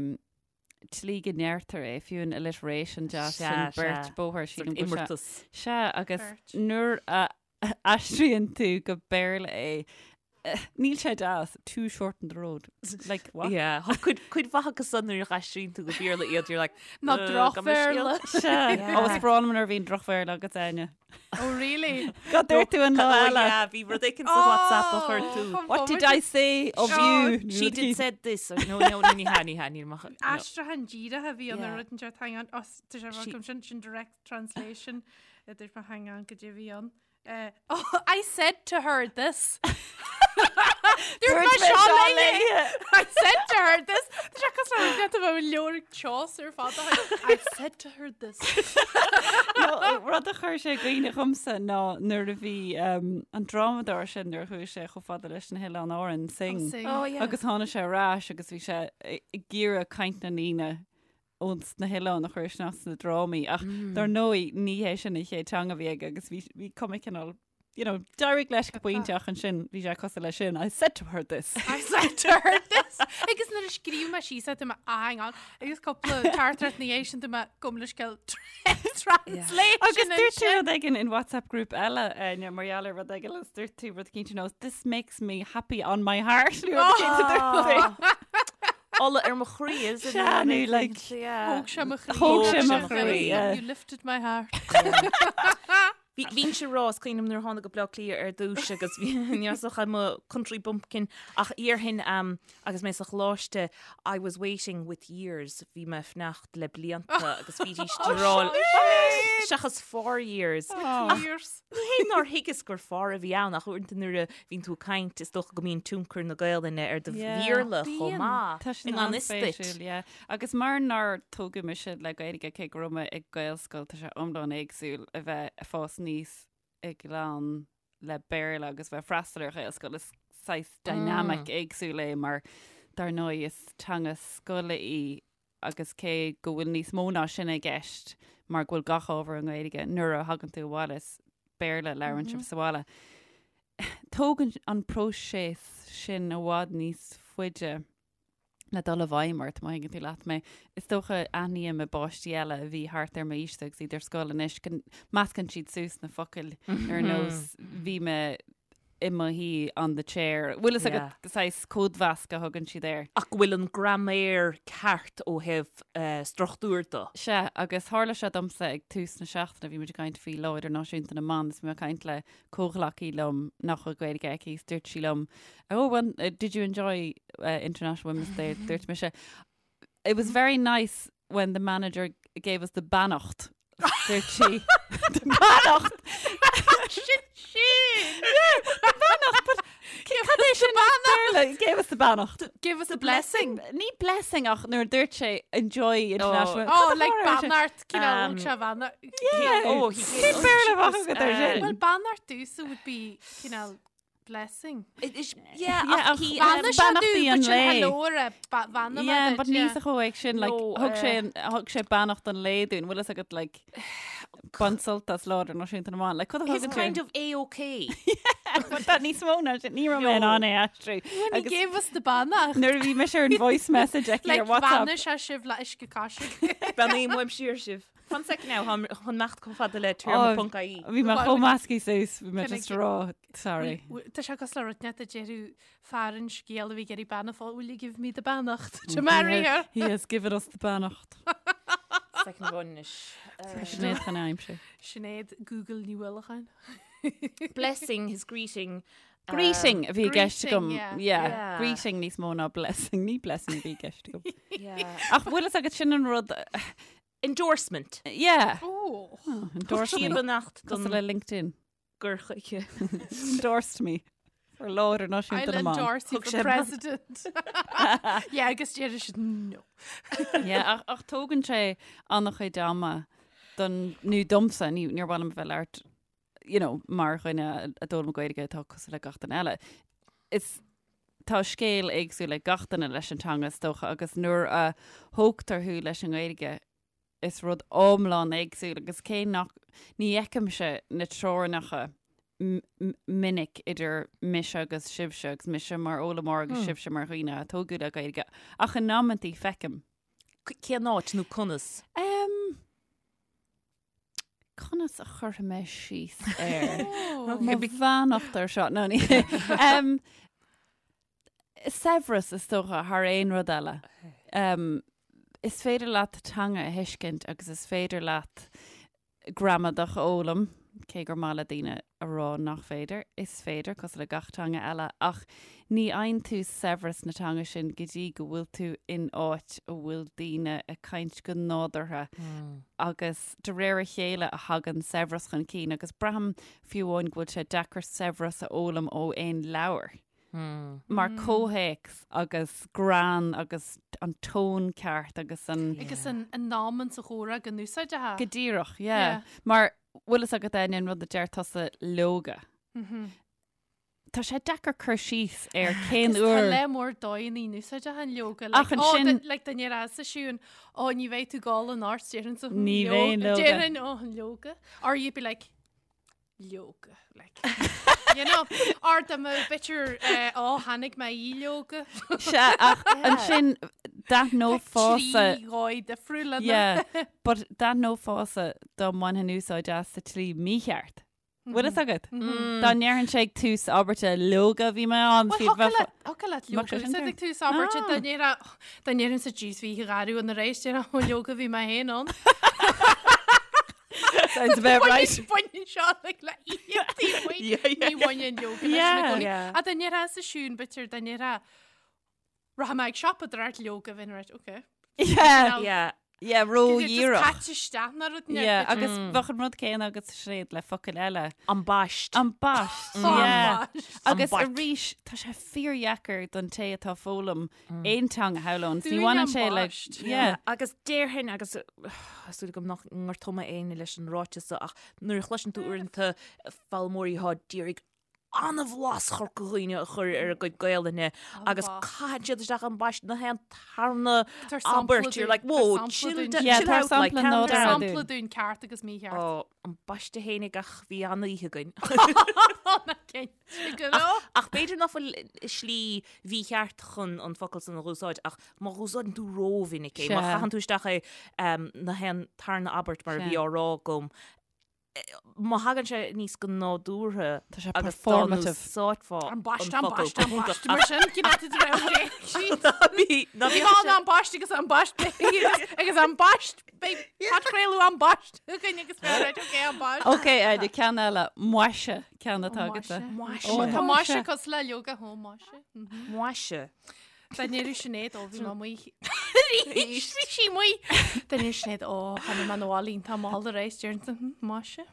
D: tslí go ndeirtear é, fiú an alliteration deas
B: Sea,
D: sin beirt
B: sea.
D: bóthar
B: Sort
D: sílim go bhfuil sé-
B: imeartas.
D: Sea, agus
C: Beirt.
D: nuair a aistríonn tú go Béarla é, níl sé deas, two shorten the road. Like, what?
B: Yeah, tá cuid, cuid mhaith acu san nuair a aistríonn tú go Béarla iad, you're like,
C: Ná
B: "Uh,
C: drochbhéarla."
D: Sea,
B: Yeah.
D: ó is breá liom nuair a bhíonn drochbhéarla agat Áine.
C: Oh really?
D: Cad dúirt tú an lá
B: Oh,
D: eile?
B: yeah, bhí rud éicint sa WhatsApp a chuir tú.
C: Oh,
D: What did I say of
C: Oh,
D: you?
B: She did said this. Or, no, no, no, ní hea, ní hea, níl amach. No.
C: Aistriúchán díreach a bhí ann
B: Yeah.
C: ar rud inteacht hang on, oh, tá sé
B: She-
C: agam sin sin direct translation idir mo hang on go dtí bhí ann. Uh, oh, I said to her this. Dúirt mé seo léi. I said to her this. Tá sé cosúil le rud a bheith leabhar Chaucer fada. I said to her this.
D: No, rud a chuir sé i gcuimhne dhomsa ná nuair a bhí um, an drámadóir sin nuair a chuaigh sé chomh fada leis na hOileáin Árann, Synge.
C: Synge.
B: Oh, yeah.
D: Agus tháinig sé ar ais agus bhí sé ag iarraidh caint na ndaoine ós na hoileáin a chur isteach sna drámaí ach dar ndóigh ní hé sin an chéad teanga a bhí aige agus bhí bhí cuma cineál you know, d'éirigh leis go pointe ach ansin bhí sé cosúil leis sin I said to her this.
C: I said to her this. Agus nuair a scríobh mé síos é, tá mé ah, hang on. Agus cúpla teachtaireacht ina dhiaidh sin tá mé gabh mo leithscéal translation
D: Agus dúirt tú
C: ansin.
D: rud éigin in WhatsApp group eile eh, mar gheall ar rud éigin agus dúirt tú rud éicint ar nós this makes me happy on my heart nó rud éicint a dúirt tú.
B: Ola ar mo chroí is it?
D: Sea, nó like
B: Yeah.
C: Thóg sé mo chroí.
D: Thóg
B: sé mo chroí,
D: yeah.
C: You lifted my heart.
B: Bhí bhínnse ag rá is cuimhin liom nuair a tháinig go Bleá Cliath ar dtús agus bhí neosach i mo country bumpkin ach iarthainn um, agus mé sa choláiste I was waiting with years bhí mé ag fanacht le blianta agus bhídís ag rá seachas for years.
C: Years.
B: Ní hé nár thuigeas gur for a bhí ann ach uaireanta nuair a bhíonn tú ag caint is dócha go mbíonn tionchar na Gaelainne ar do
D: Yeah.
B: Bhéarla chomh
C: Bíonn.
B: maith.
D: Tá sin
B: I ngan fhios duit.
D: an-spéisiúil, yeah. Agus mar nár tógadh mise le Gaeilge cé go raibh mé ag Gaelscoil tá sé iomlán éagsúil a bheith ag fás aníos i gclann le Béarla agus bheith freastal ar Ghaelscoil. Is saghas dynamic éagsúil é mar dar ndóigh is teanga scoile í agus cé go bhfuil níos mó ná sin i gceist mar go bhfuil gach ábhar i nGaeilge nuair a thagann tú abhaile is Béarla a labhrann sibh sa bhaile. Tógann an próiseas sin i bhfad níos faide le dul i bhfeidhm ort, má thuigeann tú leat mé. Is dócha aithním i bpáistí eile a bhí thart ar m'aois agus iad ar scoil anois go meascann siad suas na focail ar nós bhí mé i mo shuí on the chair. Bhfuil fhios agat saghas códmheasc a thugann siad air.
B: Ach go bhfuil an graiméar ceart ó thaobh struchtúir de.
D: Sea, agus tharla sé domsa ag tús na seachtaine, bhí muid ag caint faoi Lá Idirnáisiúnta na mBan is bhí mé ag caint le comhghleacaí liom nach bhfuil Gaeilge aici is dúirt sí liom, Oh, well, did you enjoy International Women's Day? Dúirt mise, It was very nice when the manager gave us the beannacht. Dúirt sí, The beannacht!
C: Sin sin!
D: The beannacht, but cad é sin beannacht? Gave us the beannacht.
C: Give us a blessing.
D: Ní blessing ach nuair a dúirt sé enjoy international.
C: Oh, like beannacht, cineál thug sé beannacht.
D: Yeah.
B: Oh, he
D: Cén Béarla a bheadh agat ar sin?
C: Well, beannacht domhsa would be cineál Blessing.
B: Yeah,
D: Yeah,
B: ach he,
D: ach
B: um,
C: Bheannaigh sé
D: beannachtaí
C: dúinn,
D: an
C: but sin
D: lae.
C: hello ar a ba- bheannaigh mé
D: Yeah,
C: duit,
D: but níl
C: yeah.
D: sa chomh sin, like,
B: No,
D: thug sé an- thug sé beannacht an lae dúinn, bhfuil fhios agat, like, bain sult as Lá Idirnáisiúnta na mBan. Like, cad a
B: He's
D: thugann
B: kind
D: tú?
B: of A-OK.
D: Tá níos mó ná sin, ní raibh mé in ann é a aistriú.
C: When he gave us the beannacht.
D: Nuair a bhí mise ar an voice message aici ar
C: Like
D: WhatsApp.
C: bheannaigh sé sibh le uisce coise.
B: Beannaím uaim siar sibh. Fan sec now, táim chun imeacht chomh fada le téarma.ie.
D: Bhí mé chomh measctha suas, bhí mé
C: Can I
D: just
C: get-
D: ag rá, sorry.
C: Tá sé cosúil le rud inteacht a déarfadh fear an scéal a bhí ag iarraidh bean a phósadh, will you give me the beannacht to marry her?
D: He has given us the beannacht.
B: Second amháin anois.
D: Sinéad chun aimsir.
C: Sinéad Google Ní Uallacháin.
B: Blessing his greeting.
D: Greeting a bhí i gceist
C: greeting,
D: agam.
C: yeah.
D: Yeah.
B: Yeah.
D: Greeting níos mó ná blessing. Ní blessing a bhí i gceist agam.
B: Yeah.
D: Ach bhfuil fhios agat sin an rud...
B: Endorsement.
D: Yeah.
C: Oh.
D: Oh, endorsed me.
B: Beannacht
D: Cosúil
B: don
D: le LinkedIn.
B: gur chuige.
D: Endorsed me. For Lá Idirnáisiúnta
C: I'll
D: na mBan.
C: endorse you
B: Thug
C: for
B: sé
C: president. yeah, agus deir siad no.
D: Yeah, ach, ach tógann sé an-chuid ama don, nó domsa, ní, níor mhaith liom a bheith ag labhairt, you know, mar dhuine a d'fhoghlaim Gaeilge atá cosúil le gach duine eile. Is tá scéal éagsúil ag gach duine leis an teanga is dócha agus nuair a thógtar thú leis an nGaeilge is rud iomlán éagsúil agus cé nach ní fheicimse na teorainneacha minic idir mise agus sibhse agus mise mar fhoghlaimeoir agus sibhse mar dhaoine a tógadh le Gaeilge ach in amantaí feicim.
B: Cén áit nó conas?
D: Um, conas a chuirfidh mé síos air? Mo bheannacht ar seo nó ní. Um, saibhreas is dócha thar aon rud eile. Um, is féidir leat teanga a thuiscint agus is féidir leat gramadach a fhoghlaim, cé gur maith le daoine a rá nach féidir, is féidir, cosúil le gach teanga eile, ach ní fhaigheann tú saibhreas na teanga sin go dtí go bhfuil tú in áit a bhfuil daoine ag caint go nádúrtha agus de réir a chéile a thagann saibhreas chun cinn agus braithim fiú amháin go bhfuil sé deacair saibhreas a fhoghlaim ó aon leabhar. Mar comhthéacs agus greann agus an tón ceart agus an.
C: Agus an am sa chomhrá go n-úsáidfeá.
D: Go díreach, yeah. Mar bhfuil fhios agat Áine an rud a deir tusa leoga. Tá sé deacair cur síos ar cén
C: Tá
D: uair.
C: le mór dóigheanna in úsáideach an leoga.
D: Ach ansin-
C: Like dá ndéarfá Siún, ó ní bheidh tú ag gabháil anocht déarfainnse.
D: Ní bheinn leoga.
C: Déarfainn ó an leoga. Or you'd be like, leoga like you know or dá mbeadh b'fhéidir eh, ó tháinig mé í leoga
D: Sea, ach ansin d'aithneofása
C: trí dhóigh difriúla
D: Yeah, but d'aithneofása dá mbainfinn úsáid as sa tslí mícheart. Bhfuil fhios agat? Dá ndéarfainnse ag tús abairte leoga bhí mé ann
C: Well,
D: bhí bheith
C: thiocfadh leat
D: Mbeadh
C: leoga
D: sé sin
C: úsáid
D: ceart.
C: ag tús abairte
D: Ah.
C: dá ndéarfá dá ndéarfainnse jeez bhí gharú an réis déarfá ó leoga bhí mé féin ann.
D: Sounds about right.
C: Baineann seo like le íochtaí Ní bhaineann leoga leis
D: Yeah.
C: na gcónaí.
B: Yeah.
C: A dá ndéarfá sa Siún b'fhéidir dá ndéarfá rachaidh mé ag siopadóireacht leoga bheinn right okay.
D: Yeah,
B: Yeah.
D: yeah,
C: Just
D: ró-dhíreach.
C: caite isteach ná rud
D: Yeah, agus bheadh an rud céanna agat Sinéad le focail eile.
B: Ambaist.
D: Ambaist.
C: Mm.
D: Yeah. Agus
B: Ambaist.
D: arís tá sé fíordheacair don té atá ag foghlaim aon teanga shamhlóinn. Ní
C: Dúinn
D: bhaineann sé le
C: ambaist.
D: yeah.
B: Agus déarfainn agus súil agam nach ngortóidh mé éinne leis an ráiteas seo ach nuair a chloiseann tú uaireanta foghlaimeoirí atá d'iarraidh an-bhlas Chorca Dhuibhne a chur ar a gcuid Gaelainne agus caitheann siad isteach ambaist na haon tarna
C: Tabhair sampla
B: abairt. You're
C: dúinn.
B: like, whoa,
C: Tabhair sampla
B: chill,
C: dúinn.
B: da-
D: Yeah,
B: chill
D: tabhair
B: out, like,
D: sampla
B: calm
D: nádúrtha
B: down.
D: dúinn.
C: Sampla dúinn ceart agus mícheart.
B: Ó, ambaiste fhéinig ach bhí an-oíche againn.
C: Cinnte go raibh.
B: Ach b'fhéidir nach bhfuil slí mhícheart chun an focal san a dh'úsáid ach má dh'úsáideann tú rómhinic é, má
D: Sea.
B: chaitheann tú isteach é um, na haon tarna abairt mar a bhí
D: Sea.
B: á rá agam, má thagann sé níos go nádúrtha
D: Tá sé
B: agus
D: performative.
B: úsáidfeá
C: Ambaist,
B: an focal
C: ambaist, ambaist.
B: go
C: Mar sin, cén áit a raibh sé?
B: Bhí ná
C: Bhí an ambaist agus ambaist agus ambaist podchraoladh ambaist againn agus bheith right, okay, ambaist.
D: Ok, Áine, ceann eile, maise ceann atá agatsa.
B: Maise.
D: Ó,
C: Tá maise cosúil le leoga ó maise.
B: Maise.
C: Dá ndéarfadh Sinéad ó bhí mé amuigh. Bhí sí amuigh. Dá ndéarfadh Sinéad ó tháinig mé 'na bhaile iontach mall aréir déarfainnse hm, maise.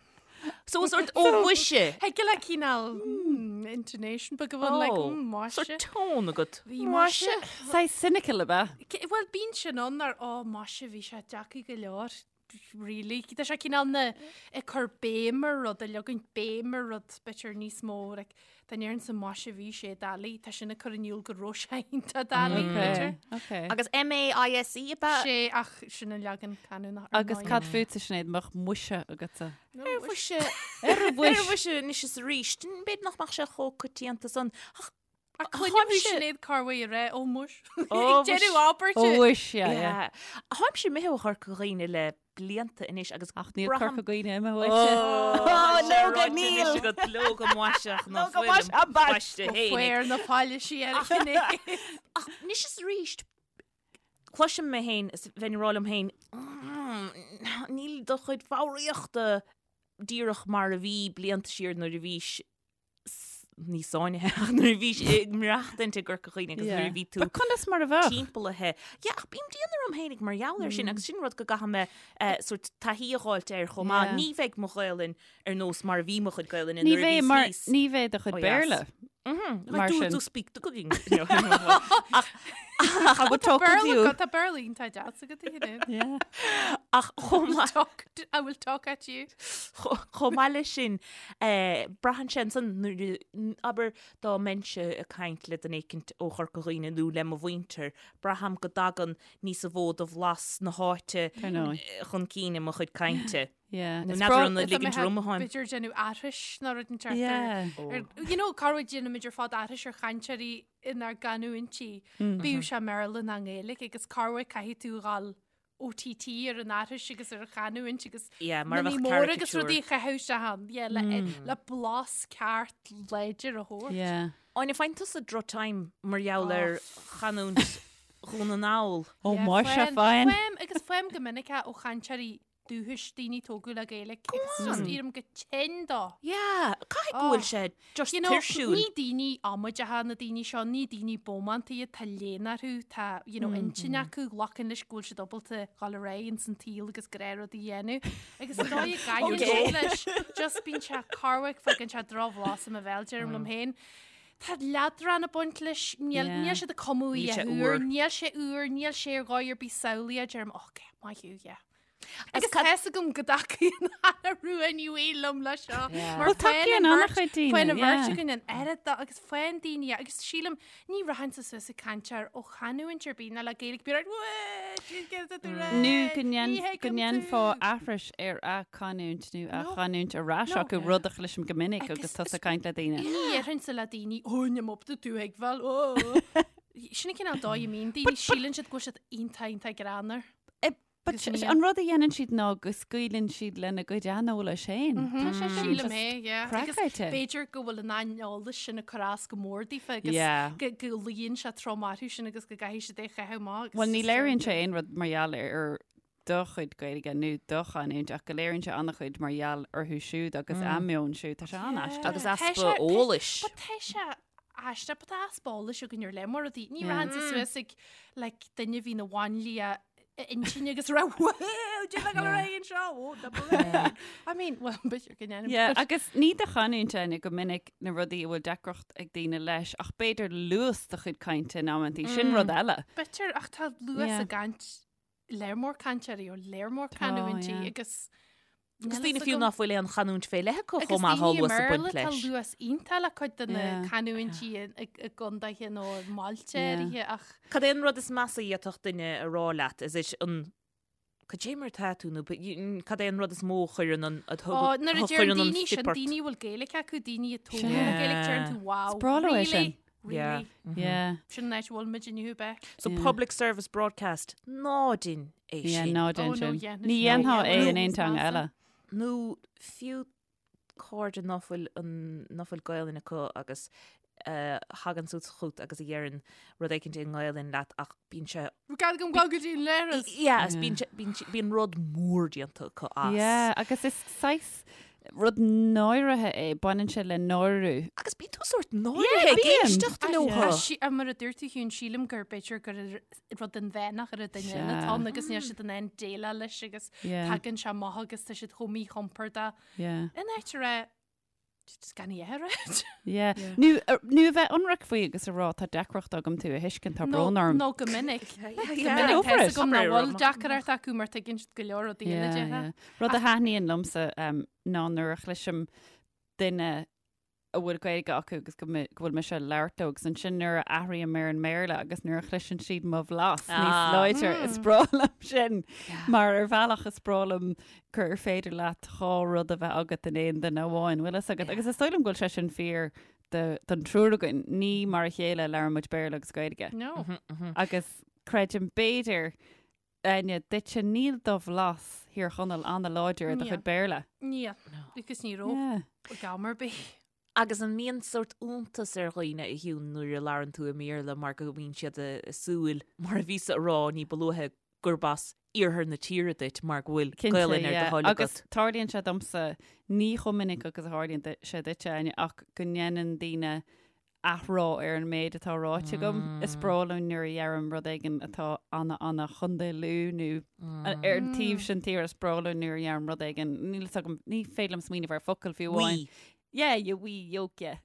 B: So sort ó mhuise.
C: Thig le cineál hmm, intonation beag a bheith like
B: Oh,
C: hmm, maise.
B: Sort tone agat.
C: Bhí maise.
D: Saghas cynical ab ea?
C: Bhuel bíonn sin ann ar ó maise bhí sé deacair go leor. Really? Tá sé cineál na ag cur béim ar rud, ag leagaint béim ar rud, b'fhéidir níos mó, like, dá ndéarfainnse maise bhí sé doiligh, tá sin ag cur in iúl go raibh sé iontach doiligh, b'fhéidir.
D: Okay.
B: Agus M-A-I-S-E ab ea?
C: Sé ach sin an leagan canúnach ar
D: Agus
C: ndóigh.
D: cad fútsa Sinéad, mbeadh muise agatsa?
B: Ar mhuise,
D: Ar
B: ar
D: mhuis.
B: mhuise anois is arís, b'fhéidir nach mbeadh sé chomh coitianta san. Ach
C: Ach cluinim thú Sinéad corruair ag rá, ó muis.
B: Ó,
C: Ag deireadh abairte.
D: Ó mhuis, yeah, yeah.
B: Yeah. Táimse imithe ó Chorca Dhuibhne le blianta anois agus
D: Ach níl
B: braithim-
D: Corca Dhuibhne imithe uaitse.
B: Ó,
D: leoga níl.
B: Agat leoga maiseach ná
D: Leoga mais
B: fuil
D: a bais.
B: baiste fhéinig.
C: Fuair na paillisí ar a Sinéad.
B: Ach anois is arís, cloisim mé féin is bheinn ag rá liom féin, "Mm, níl do chuid foghraíochta díreach mar a bhí blianta siar nuair a bhís ní sáinnithe ach nuair a bhís ag maireachtaint i gCorca Dhuibhne agus nuair a bhí tú
D: But conas mar a bheadh?
B: timpeallaithe. Yeah, ach bím dian orm fhéinig mar gheall air sin agus sin rud go gcaithfidh mé eh, sort taithí a dh'fháilt air chomh maith.
D: Yeah.
B: Ní bheidh mo Ghaelainn ar nós mar a bhí mo chuid Gaelainne
D: Ní
B: nuair a
D: bheidh
B: bhíos
D: mar
B: níos.
D: ní bheidh do chuid
B: Oh, yes.
D: Béarla.
B: Mar
D: Mar
B: do
D: sin.
B: do speak the cooking. Ach
D: I would talk with you.
C: Tá Béarla iontach deas agat a Shinéad.
D: Yeah.
B: ach chomh maith
C: Talk to- I will talk at you.
B: chomh maith leis sin eh, braitheann sé ansan nuair a- abair dá mbeinnse ag caint le duine éicint ó Chorca Dhuibhne nó le mo mhuintir, braithim go dtagann níos mó de bhlas na háite
D: Ar ndóigh.
B: eh, chun cinn i mo chuid cainte.
D: Yeah.
B: Nó
D: Is
B: n'fheadar
D: breá-
B: an
C: Is
B: ligint orm atháim.
C: B'fhéidir déanamh aithris nó rud inteacht
D: Yeah.
C: ar you know, corruair déanaimid ar fad aithris ar chainteoirí inár gcanúintí. Bíodh sé i mBéarla nó i nGaeilge agus corruair caithfidh tú dhul OTT ar an aithris agus ar an chanúint agus
B: Yeah, mar a
C: na
B: bheadh
C: mór agus
B: caricature.
C: rudaí a chaitheamh isteach ann. Yeah, le, le blas ceart láidir a thabhairt.
D: Yeah.
B: Áine, faigheann tusa droch-time mar gheall ar chanúint Dhún na nGall.
D: Ó
C: Yeah,
D: muise
C: faighim-
D: fine.
C: Faighim agus faighim go minic é ó chainteoirí dúchais, daoine tógadh le Gaeilge agus just éirím go tinn dó.
B: Yeah, caithfidh go bhfuil sé just
C: You know,
B: tuirsiúil.
C: ní daoine amaideacha na daoine seo, ní daoine bómánta iad, tá léann orthu, tá, you know, intinn acu, glacann leis go bhfuil siad ábalta dhul ar aghaidh ins an tsaol agus gnáthrud a dhéanamh. Agus an dóigh a gcaitheann siad leis, just bíonn sé corruair, faigheann sé drochbhlas i mo bhéal, deirim liom féin. Tá leadrán ag baint leis, níl,
D: Yeah.
C: níl siad ag cumadh
B: Níl
C: í
B: sé
C: a úr,
B: úr.
C: níl sé úr, níl sé ar dhóigh ar bith samhlaíoch, deirim, ok, maith thú, yeah. Agus
B: Agus cad-
C: tá fhios agam go dtacaíonn Anna Rua Ní Bhaoill liom leis seo. Mar
D: Well, tacaíonn an-chuid daoine,
C: Faigheann an bheirt
D: yeah.
C: againn an oiread de agus faigheann daoine agus sílim ní rachainnse suas ag caint ar ó chanúint ar bith ná le Gaeilge bíonn ort, "Wee, jeez, get it right,
D: Nó go
C: ní
D: ndéan- go
C: thuigim
D: ndéanfá
C: tú."
D: aithris ar a canúint nó a
C: No.
D: chanúint ar ais
C: No.
D: acu rud a chloisim go minic
C: Agus
D: agus tusa ag caint le daoine.
C: Ní dhéarfainnse le daoine, "Ó, níl mé ábalta tú a thuigbheáil, ó." Sin an cineál dóigh a mbíonn daoine, síleann siad go bhfuil siad iontach iontach greannmhar.
D: But
C: Agus ní-
D: an rud a dhéanann siad ná go scaoileann siad lena gcuid aineolais féin. Tá sé sin
C: Sílim
D: just
C: é, yeah. Agus
D: craiceáilte.
C: b'fhéidir go bhfuil an aineolas sin ag cur as go mór daofa agus
D: Yeah.
C: go go luíonn sé trom orthu sin agus go gcaithfidh siad é a chaitheamh amach. agus
D: Well, ní
C: just-
D: léiríonn sé aon rud mar gheall ar do chuid Gaeilge nó do chanúint ach go léiríonn sé an-chuid mar gheall orthu siúd agus a meon siúd. Tá sé an-aisteach.
B: Agus
C: Tá
B: easpa
C: sé- tá-
B: eolais.
C: But tá sé aisteach, but tá easpa eolais againn ar lear mór rudaí. Ní rachainnse suas ag like, duine a bhí ina mháinlia intinne agus rá anseo I mean, well, b'fhéidir go ndéanaim.
D: Yeah, agus ní do chanúint Áine go minic na rudaí a bhfuil deacracht ag daoine leis ach b'fhéidir luas do chuid cainte in amantaí sin rud eile.
C: B'fhéidir ach tá luas
D: Yeah.
C: i gcaint lear mór cainteoirí ó lear mór
D: Tá,
C: canúintí
D: yeah.
C: agus
B: Agus
C: níl
B: daoine
C: fhios
B: fiú
C: agam.
B: ná fuil aon chanúint fé leith acu
C: Agus
B: chomh maith
C: daoine i
B: luas ag baint
C: mBéarla tá
B: leis.
C: luas iontach le cuid de na
D: Yeah.
C: canúintí i i gcontaetha nó i mbailte
D: Yeah.
C: áirithe ach
B: Cad é an rud is measa a d'fhéadfadh duine a rá leat? Is é an Cad é mar tá tú nó cad é an rud is mó a chuireann an a
C: Ó,
B: thug-
C: nuair a
B: a
C: deir
B: chuireann an
C: daoine sin
B: stip ort?
C: daoine a bhfuil Gaeilge acu daoine a tógadh le
D: Yeah.
C: Gaeilge deireann tú wow.
D: Is breá leo é
C: really?
D: sin.
B: Yeah.
C: Really?
D: Yeah.
C: Sin an áit a bhfuil muid inniu bheith.
B: So
D: Yeah.
B: public service broadcast ná déan é
D: Yeah,
B: sin.
D: ná
C: Oh,
D: déan
C: no,
D: sin.
C: yeah,
D: Ní
C: no,
D: dhéanfá
C: yeah,
D: é
C: no,
D: in aon
C: is
D: teanga
C: measa.
D: eile.
B: Nó fiú cairde ná fuil an ná fuil Gaelainn acu agus eh, thagann suas chugat agus a dheireann rud éicint i nGaelainn leat ach bíonn sé
C: Gad go go dtí an leithreas.
B: Yeah, is
D: Yeah.
B: bíonn sé- bíonn sé- bíonn rud mór déanta acu as.
D: Yeah, agus is saghas rud náirithe é, baineann sé le náiriú.
B: Agus bíonn tú sórt náirithe ag
D: bíonn.
B: éisteacht leo.
C: A mar a dúirt tú Shiún, sílim gur b'fhéidir gur rud inmheánach ar an duine
D: Sea.
C: eile atá ann agus níl siad in ann déileáil leis agus
D: Yeah.
C: tagann sé amach agus tá siad chomh míchompordach.
D: Yeah.
C: In áit a rá. Just gan í a rá.
D: Yeah. Nó nó a bheith ionraic faoi agus a rá tá deacracht agam tú a thuiscint tá brón orm.
C: Nó go minic. Go minic tá agam nach bhfuil deacracht acu mar tuigeann siad go leor rudaí eile
D: yeah, yeah. Rud a thaitníonn liomsa um, ná nuair a chloisim duine a bhfuil Gaeilge acu agus go bhfuil mise ag labhairt leo agus ansin nuair a athraím ar an mBéarla agus nuair a chloiseann siad mo bhlas níos ah. láidre is breá liom sin mar ar bhealach is breá liom gur féidir leat dhá rud a bheith agat in aon duine amháin, bhfuil fhios agat agus is dóigh liom go bhfuil sé sin fíor don triúr againn, ní mar a chéile a labhrann muid Béarla agus Gaeilge.
C: No.
B: Mhm, mhm.
D: Agus creidim b'fhéidir Áine, duitse níl do bhlas Thír Chonaill an-láidir i do chuid Béarla.
C: Níl. Agus ní raibh ag am ar bith.
B: Agus an mbíonn sórt iontas ar dhaoine a Shiún nuair a labhrann tú i mBéarla mar go mbíonn siad ag súil, mar a bhíos-sa a rá ní ba luaithe, gurb as iarthar na tíre duit mar go bhfuil Gaelainn ar do thoil agat.
D: Agus tarlaíonn sé domsa, ní chomh minic agus a tharlaíonn sé duitse, Áine, ach go ndéanann daoine athrá ar an méid atá ráite agam. Is breá liom nuair a dheirim rud éigin atá ana ana Chontae Lú nó ar an taobh sin tíre is breá liom nuair a dheirim rud éigin, níl fhios agam, ní féidir liom smaoineamh ar focal fiú amháin.
B: Wee.
D: Yeah, you wee yoke, yeah.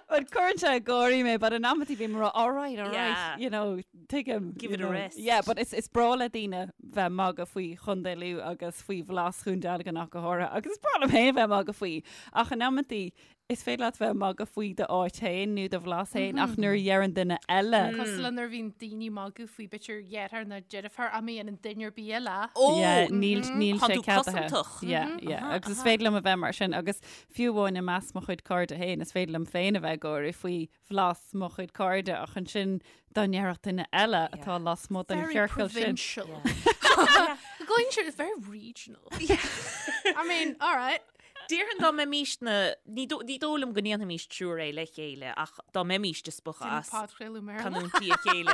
D: But cuireann sé ag gáirí mé, but in amantaí bím ag rá, all right, all right,
B: Yeah.
D: you know, tuigim.
B: Give
D: you
B: it a
D: know.
B: rest.
D: Yeah, but is, is breá le daoine bheith ag magadh faoi Chontae Lú agus faoi bhlas Dhún Dealgan ach go háirithe, agus is breá liom féin bheith ag magadh faoi. Ach in amantaí, is féidir leat bheith ag magadh faoi d'áit féin nó do bhlas féin, ach nuair a dheireann duine eile.
C: Cosúil le nuair a bhíonn daoine ag magadh faoi b'fhéidir dheartháir nó deirfiúr ach má dhéanann duine ar bith eile.
B: Ó!
D: Yeah, níl, níl
B: Tá
D: sé
B: tú
D: ceadaithe.
B: cosantach.
D: Yeah, yeah. Agus is féidir liom a bheith mar sin, agus fiú amháin i measc mo chuid cairde féin, is féidir liom féin a bheith ag gáire faoi bhlas mo chuid cairde ach ansin dá ndéarfadh duine eile atá lasmuigh den
C: Very
D: chiorcal sin.
C: provincial. Going sure it's very regional. I mean, all right.
B: Déarfainn dá mbeimís na, ní dó- ní dóigh liom go ndéanfaimis triúr é le chéile ach dá mbeimís ag spochadh as
C: Podchraoladh Béarla.
B: canúintí a chéile.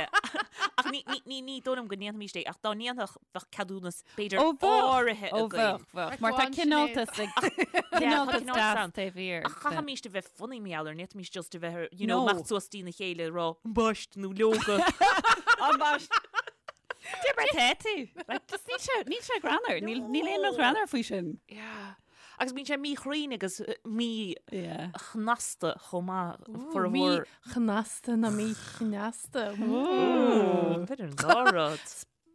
B: Ach ní, ní, ní, ní dóigh liom go ndéanfaimis é ach dá ndéanfadh bheadh ceadúnas b'fhéidir
D: Ó bheadh,
B: áirithe
D: ó
B: againn.
D: bheadh, bheadh. Mar tá
C: Go on,
D: cineáltas ag cineáltas
B: cineáltas
D: deas
B: ann.
D: taobh thiar.
B: Ach chaithfimís a bheith funny mar gheall air, ní fhéadfaimis just a bheith, you know,
D: No.
B: imeacht suas dtína chéile ag rá, ambaist nó leoga.
D: Ambaist. Dé mar tá tú. Like, just níl sé, níl sé greannmhar. Níl, níl aon rud greannmhar faoi sin.
B: Yeah. Agus bíonn sé míchruinn agus mí
D: Yeah.
B: chnasta chomh maith formhór.
C: Mí-chnasta ná mí-chneasta.
B: B'fhéidir an dá rud.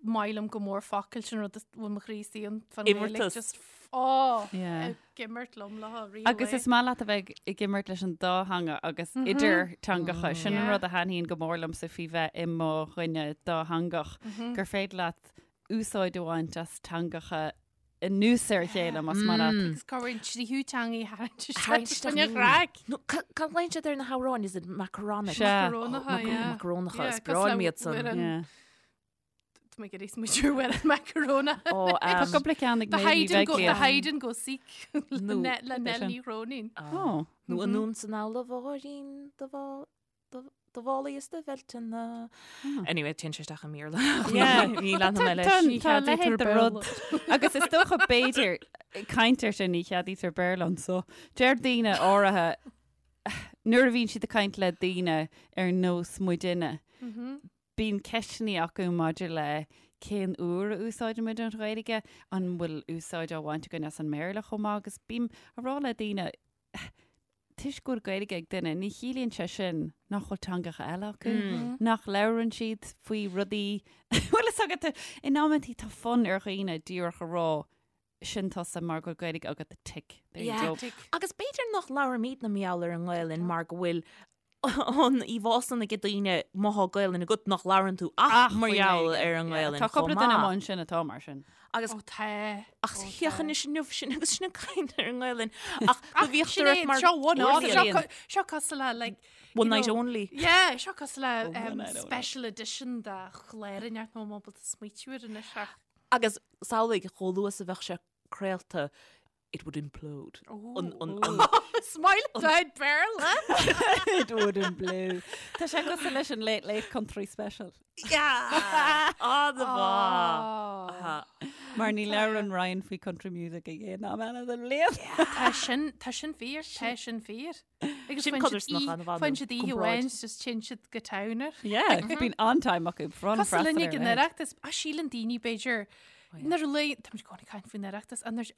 C: Maith liom go mór focal sin rud a bhfuil mo chroí istigh ann fan Ghaeilge,
B: Imeartas.
C: just ó,
D: Yeah.
C: ag imirt liom le rí
D: Agus is maith leat a bheith ag imirt leis an dá theanga agus idir teangacha. Sin an
C: Yeah.
D: rud a thaitníonn go mór liomsa faoi bheith i mo dhuine dátheangach, gur féidir leat úsáid a bhaint as teangacha anuas ar a chéile más maith leat.
C: Agus cá bhfuil an tríú teanga a tharraingt
B: Tharraingt
C: isteach
B: isteach
C: in
B: in-
C: chraic.
B: No, ca- cad a ghlaonn siad ar na hamhráin? Is it macaronic?
D: Sea.
C: Macarónacha, yeah.
B: Macarónacha,
C: Yeah,
B: is breá liom iad san.
C: cosúil le amhrán-
D: Yeah.
C: Tá mé ag iarraidh smaointiú ar amhrán macaróna.
B: Ó,
D: Tá
B: um,
D: cúpla ceann ag
C: The
D: Méabh Ní
C: hide and go, the
D: Bheaglaoich.
C: hide and go seek le
B: No.
C: Ne- le
D: Cad é
C: Nell
D: sin?
C: Ní Chróinín.
D: Ó.
B: Nó anonn 's anall a Mháirín do bhá- do- do mhálaí is do bheilteanna. Anyway, téann sé isteach i mBéarla.
D: Yeah.
B: Ní leanfaidh mé leis.
D: Tá
C: Ní
D: tá
C: cheadaítear
D: leithéid de
C: Béarla.
D: rud. Agus is dócha b'fhéidir caint ar sin ní cheadaítear Béarla anso. Deir daoine áirithe nuair a bhíonn siad ag caint le daoine ar nós muidinne, bíonn ceisteanna acu maidir le cén uair a úsáidimid an Ghaeilge, an bhfuil úsáid á bhaint againn as an mBéarla chomh maith agus bím ag rá le daoine toisc go bhfuil Gaeilge ag duine, ní chiallaíonn sé sin nach bhfuil teangacha eile acu, nach labhrann siad faoi rudaí bhfuil fhios agat in amantaí tá fonn ar dhaoine díreach a rá sin tusa mar go bhfuil Gaeilge agat tick. There you
B: Yeah.
D: go.
B: Agus b'fhéidir nach labhraimidne mar gheall ar an nGaelainn mar go bhfuil an íomhá san ag daoine má thá Gaelainn agat nach labhrann tú ach mar
D: faoin
B: gheall
D: Ghaeilge.
B: ar an
D: Yeah.
B: nGaelainn
D: Tá
B: chomh
D: cúpla duine
B: maith.
D: amháin sin atá mar sin.
B: Agus
C: Ó tá.
B: ach féach anois inniu sin agus sin ag caint ar an nGaelainn ach go bhíodh
C: Sin
B: ort
C: é,
B: mar
C: seo one off,
B: Brilliant.
C: seo co- seo cosúil le like
B: One
C: you
B: night
C: know,
B: only.
C: Yeah, seo cosúil le
D: Oh, one
C: um,
D: night only.
C: special edition de chlár inteacht nó ábalta smaoitiú air anois ach.
B: Agus samhlaigh chomh luath is a bheadh sé craolta it would implode. An, an, an,
C: Smile down Béarla.
D: It would implode. Tá sé cosúil leis an Late Late Country Special.
B: Yeah! An-mhaith.
D: Mar ní labhrann Ryan faoi country music a dhéanamh am eile den bhliain.
C: Tá sin tá sin fíor, tá sin fíor. Agus
B: Sin
C: faigheann siad
B: codarsnach an-mhaith
C: faigheann
B: nó
C: siad oíche
B: comparáid.
C: amháin just téann siad go town air.
D: Yeah, bíonn an-time acu.
C: Cosúil linn ag an Oireachtas, a síleann daoine b'fhéidir Nuair a luigh, tá muid i gcónaí ag caint faoin Oireachtas, and there's,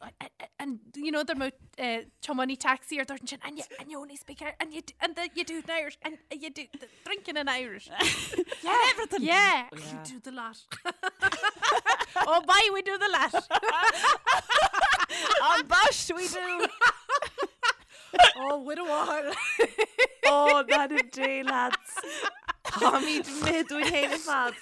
C: and you know, there mbeadh eh, tiománaí taxi ar dúirt ansin, and you, and you only speak Irish, and you, do- and the, you do it in Irish, and you do the drinking in Irish. Yeah, everything. Yeah, you do the lot. oh, bye, we do the lot.
D: An bash we do!
C: Oh, with a wall.
B: Oh, that a day, lads. Táimid imithe dúinn féin ar fad.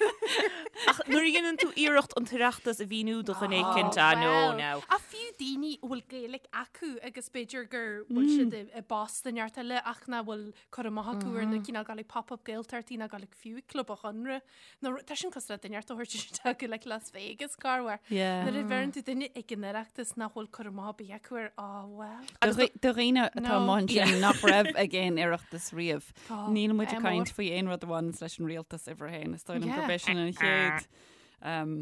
B: Ach nuair a dhéanann tú iarracht an tOireachtas a mhíniú do dhuine éicint, ah, no,
C: now. Ach fiú daoine a bhfuil Gaeilge acu agus b'fhéidir gur bhfuil siad i i bpost i neart eile ach nach bhfuil cur amach acu ar na cineál gabháil ag pop-up Gaeltachtaí ná gabháil ag fiú ag Club an Chonradh. Nó tá sin cosúil le duine a thabhairt isteach go like Las Vegas corruair.
D: Yeah.
C: Nuair a bheireann tú duine ag an Oireachtas nach bhfuil cur amach ar bith acu air, oh well.
D: Do dhaoine atá
C: No.
D: amuigh ansin nach raibh ag aon Oireachtas riamh.
C: Tá,
D: Níl muid ag
C: é
D: caint
C: mór.
D: faoi aon rud a bhaineanns leis an rialtas uimhir a haon. Is dóigh liom
C: Yeah.
D: gurb é sin an chéad um,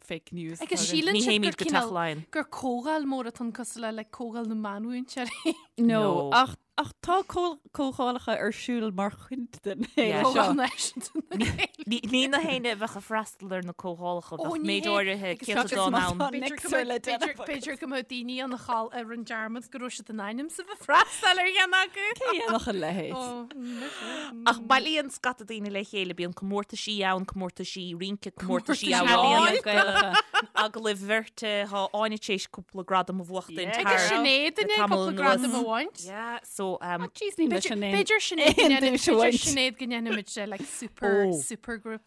D: fake news.
C: Agus
D: atá againn.
C: síleann
B: Ní
C: siad
B: théimid
C: gur
B: go Teach
C: cineál
B: Laighean.
C: gur comhdháil mór atá ann cosúil le like comhdháil na meánmhúinteoirí.
D: No,
B: No.
D: ach Ach tá comhdhálacha ar siúl mar chuid den fhéile seo.
C: Comhdháil Náisiúnta na Gaeilge.
B: Ní na héinne a bheadh ag freastal ar na comhdhálacha,
C: Ó,
B: bheadh
C: ní
B: méid
C: hé.
B: áirithe
C: Agus
B: céatadán
D: má
B: ann.
D: tá
C: B'fhéidir go
D: Nixer le
C: mbeadh-
D: déanamh agat.
C: b'fhéidir go mbeadh daoine ann a chaill a rinne dearmad go raibh siad in ainm is a bheith ag freastal ar cheann acu.
D: Cé a dhéanfadh a leithéid?
C: Ó, mise.
B: Ach bailíonn scata daoine le chéile, bíonn comórtaisí ann, comórtaisí rince, comórtaisí
C: Comórtaisí
B: amhráin,
C: ealaíon.
D: Gaelacha.
B: Agallaimh bheirte, tá Áine tar éis cúpla gradam a bhuachtaint
D: Yeah.
C: Agus
B: thar
C: Sinéad
B: le
C: inné
B: tamall
C: cúpla
B: anuas.
C: gradam a bhaint.
B: Yeah, so um,
D: Jeez, níl leis
C: B'fhéidir
D: an aon-
C: b'fhéidir Sinéad go
D: aon
C: ndéanfaidh-
D: duais a
C: b'fhéidir
D: bhaint.
C: Sinéad go ndéanfaimid eh, like super
B: Oh.
C: super group.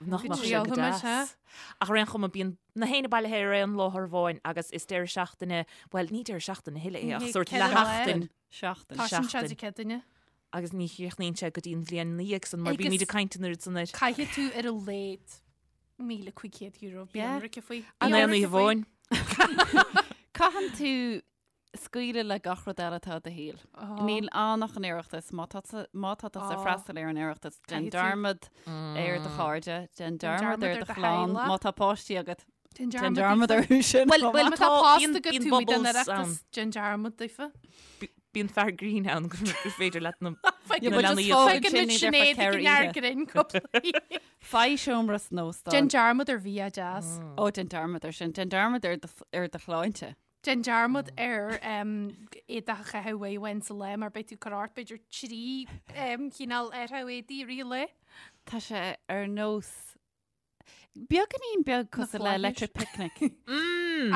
B: nach
C: Go
B: mbeadh sé go
C: dtriailfimid,
B: deas.
C: ha?
B: Ach ar aon chuma bíonn na héinne bailithe ar aon láthair amháin agus is deireadh seachtaine, bhuel ní deireadh seachtaine a thuilleadh é ach
C: Ní
B: sórt
C: ceithre lá.
B: leathsheachtain
D: Seachtain.
C: Tá sin
B: Seachtain.
C: sé Céadaoine.
B: agus ní chríochnaíonn sé go dtí an bhliain ina dhiaidh san mar
C: Agus-
B: bímid ag caint an oiread san air.
C: Caithfidh tú ar a laghad €1,500 bí
D: Yeah.
C: ionraice faoi.
B: An
C: Bí
B: aon
C: ionraice
B: oíche
C: faoi.
B: amháin.
D: Caitheann tú scaoileadh le gach rud eile atá i do shaol. Níl ann ach an Oireachtas. Má tá tú má tá tusa
C: Á.
D: freastal ar an Oireachtas, déan
C: Caithfidh tú-
D: dearmad ar do chairde, déan dearmad
C: dearmad
D: ar
C: ar
D: do
C: do
D: chlann.
C: theaghlach.
D: Má tá páistí agat,
C: Déan
D: déan
C: dearmad
D: dearmad
C: daofa.
D: orthu sin.
B: Bhuel,
D: chomh
B: bhuel,
D: maith.
C: Má tá
B: Tá-
C: post
B: bíonn-
C: agat
B: bíonn
C: tú i den
B: bubbles
C: Oireachtas,
B: ann.
C: déan dearmad daofa.
B: Bíonn fear grinn ann gur féidir leat na
C: Faigheann
B: na
D: but just
B: leanaí
D: fág
C: Faigheann
D: ansin
C: muid
D: iad ar
C: Sinéad
D: feadh
C: ag
D: ceithre
C: an fhear
D: oíche.
C: grinn cúpla oíche.
D: Faigh seomra san óstán.
C: Déan dearmad ar bhia deas.
D: Ó, déan dearmad ar sin. Déan dearmad ar do ar do shláinte.
C: Déan dearmad ar éadach a chaitheamh uair amháin sa lá mar beidh tú ag cur ort b'fhéidir 3 chineál athrú éadaí i rith an lae.
D: Tá sé ar nós beagáinín beag cosúil le
C: flaithis.
D: Electric Picnic.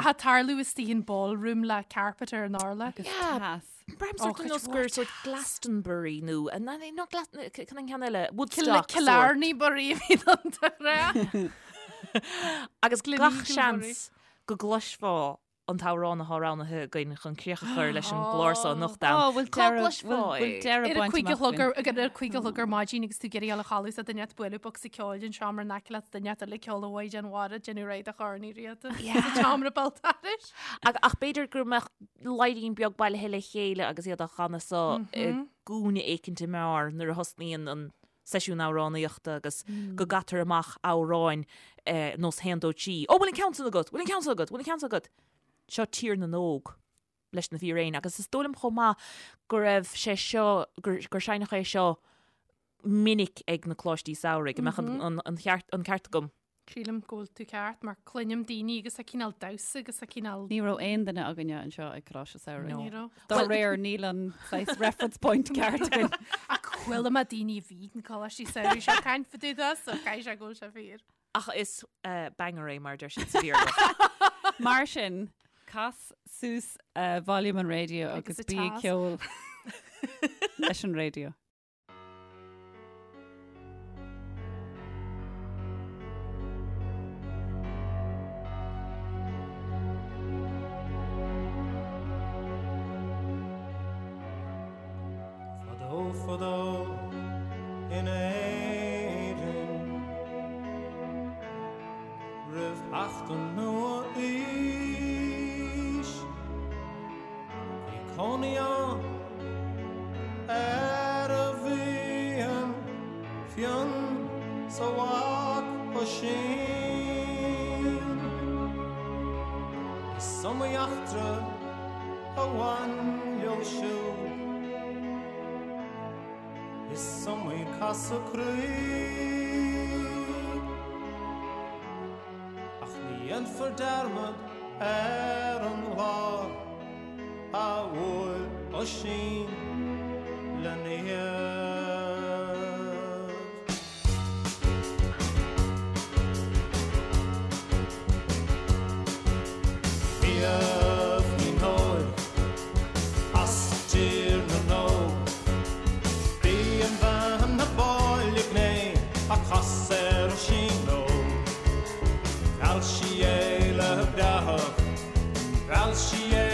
C: Ach ag tarlú istigh in ballroom le carpet ar an urlár.
D: Agus
B: Yeah.
D: teas.
B: Braithim
C: Ó,
B: sórt
C: cuid
B: nós
C: mhór
B: gur sórt Glastonbury nó nó cad an ceann eile Woodstock sórt.
C: Killarney Bury a bhí an rá.
B: Agus gach
C: Gleneagle
B: seans go gcloisfeá an t-amhrán atá roghnaithe againn chun críoch a chur leis an gclár seo anocht ann.
D: Ó, bhfuil
B: Cá
D: deireadh
B: gcloisfeá
D: bhfuil
B: é?
D: deireadh
C: Ar a
D: bainte
C: cuig a
D: amach
C: chlog
D: againn.
C: ar ar a cuig a chlog ar maidin agus tú ag iarraidh dul a chodladh is duine ag bualadh bocsa ceoil den seomra in aice leat duine eile ag ceol a Mhaighdean Mhara déanamh réidh do Chorn Uí Riada sa tseomra béal dorais.
B: Ach ach b'fhéidir go mbeadh leairín beag bailithe le chéile agus iad á chanadh so i gcúinne éicint i mbeár nuair a thosnaíonn an seisiún amhránaíochta agus go gcaitear amach amhráin nós haon dó trí. Ó, bhfuil an ceann san agat? Bhfuil an ceann san agat? Bhfuil an ceann san agat? Seo Tír na nÓg leis na Fíréin agus is dóigh liom chomh maith go raibh sé seo, gur, gur seinneadh é seo minic ag na coláistí samhraidh, an mbeadh an, an, an, cheart, an ceart agam?
C: Sílim go bhfuil tú ceart mar cluinim daoine agus a cineál damhsa agus a cineál.
D: Ní raibh aon duine againne anseo ag Coláiste Samhraidh.
C: Ní raibh.
D: Dá réir níl an saghas reference point ceart againn.
C: Ach chuala mé daoine a bhí ag na Coláistí Samhraidh seo caint fá dtaobh de so caithfidh sé go bhfuil sé fíor.
B: Ach is banger é mar a deir siad sa Bhéarla.
D: Mar sin, cas suas volume an raidió agus
C: Agus a
D: bí ag
C: teas.
D: ceol leis an raidió.
E: Fadó fadó in Éirinn Roimh theacht an nua-aois Bhí cónaí ann Fhear a bhí an Fionn 's a mhac Oisín. Is iomaí eachtra a bhain leo siúd, is iomaí casadh croí. Ach ní. Déanfar dearmad ar an lá a bhuail Oisín le Niamh. Niamh Ní Nóil as Tír na nÓg. B'í an bhean ab áille gné a casadh ar Oisín Óg. Mheall sí é le breáthacht, mheall sí é.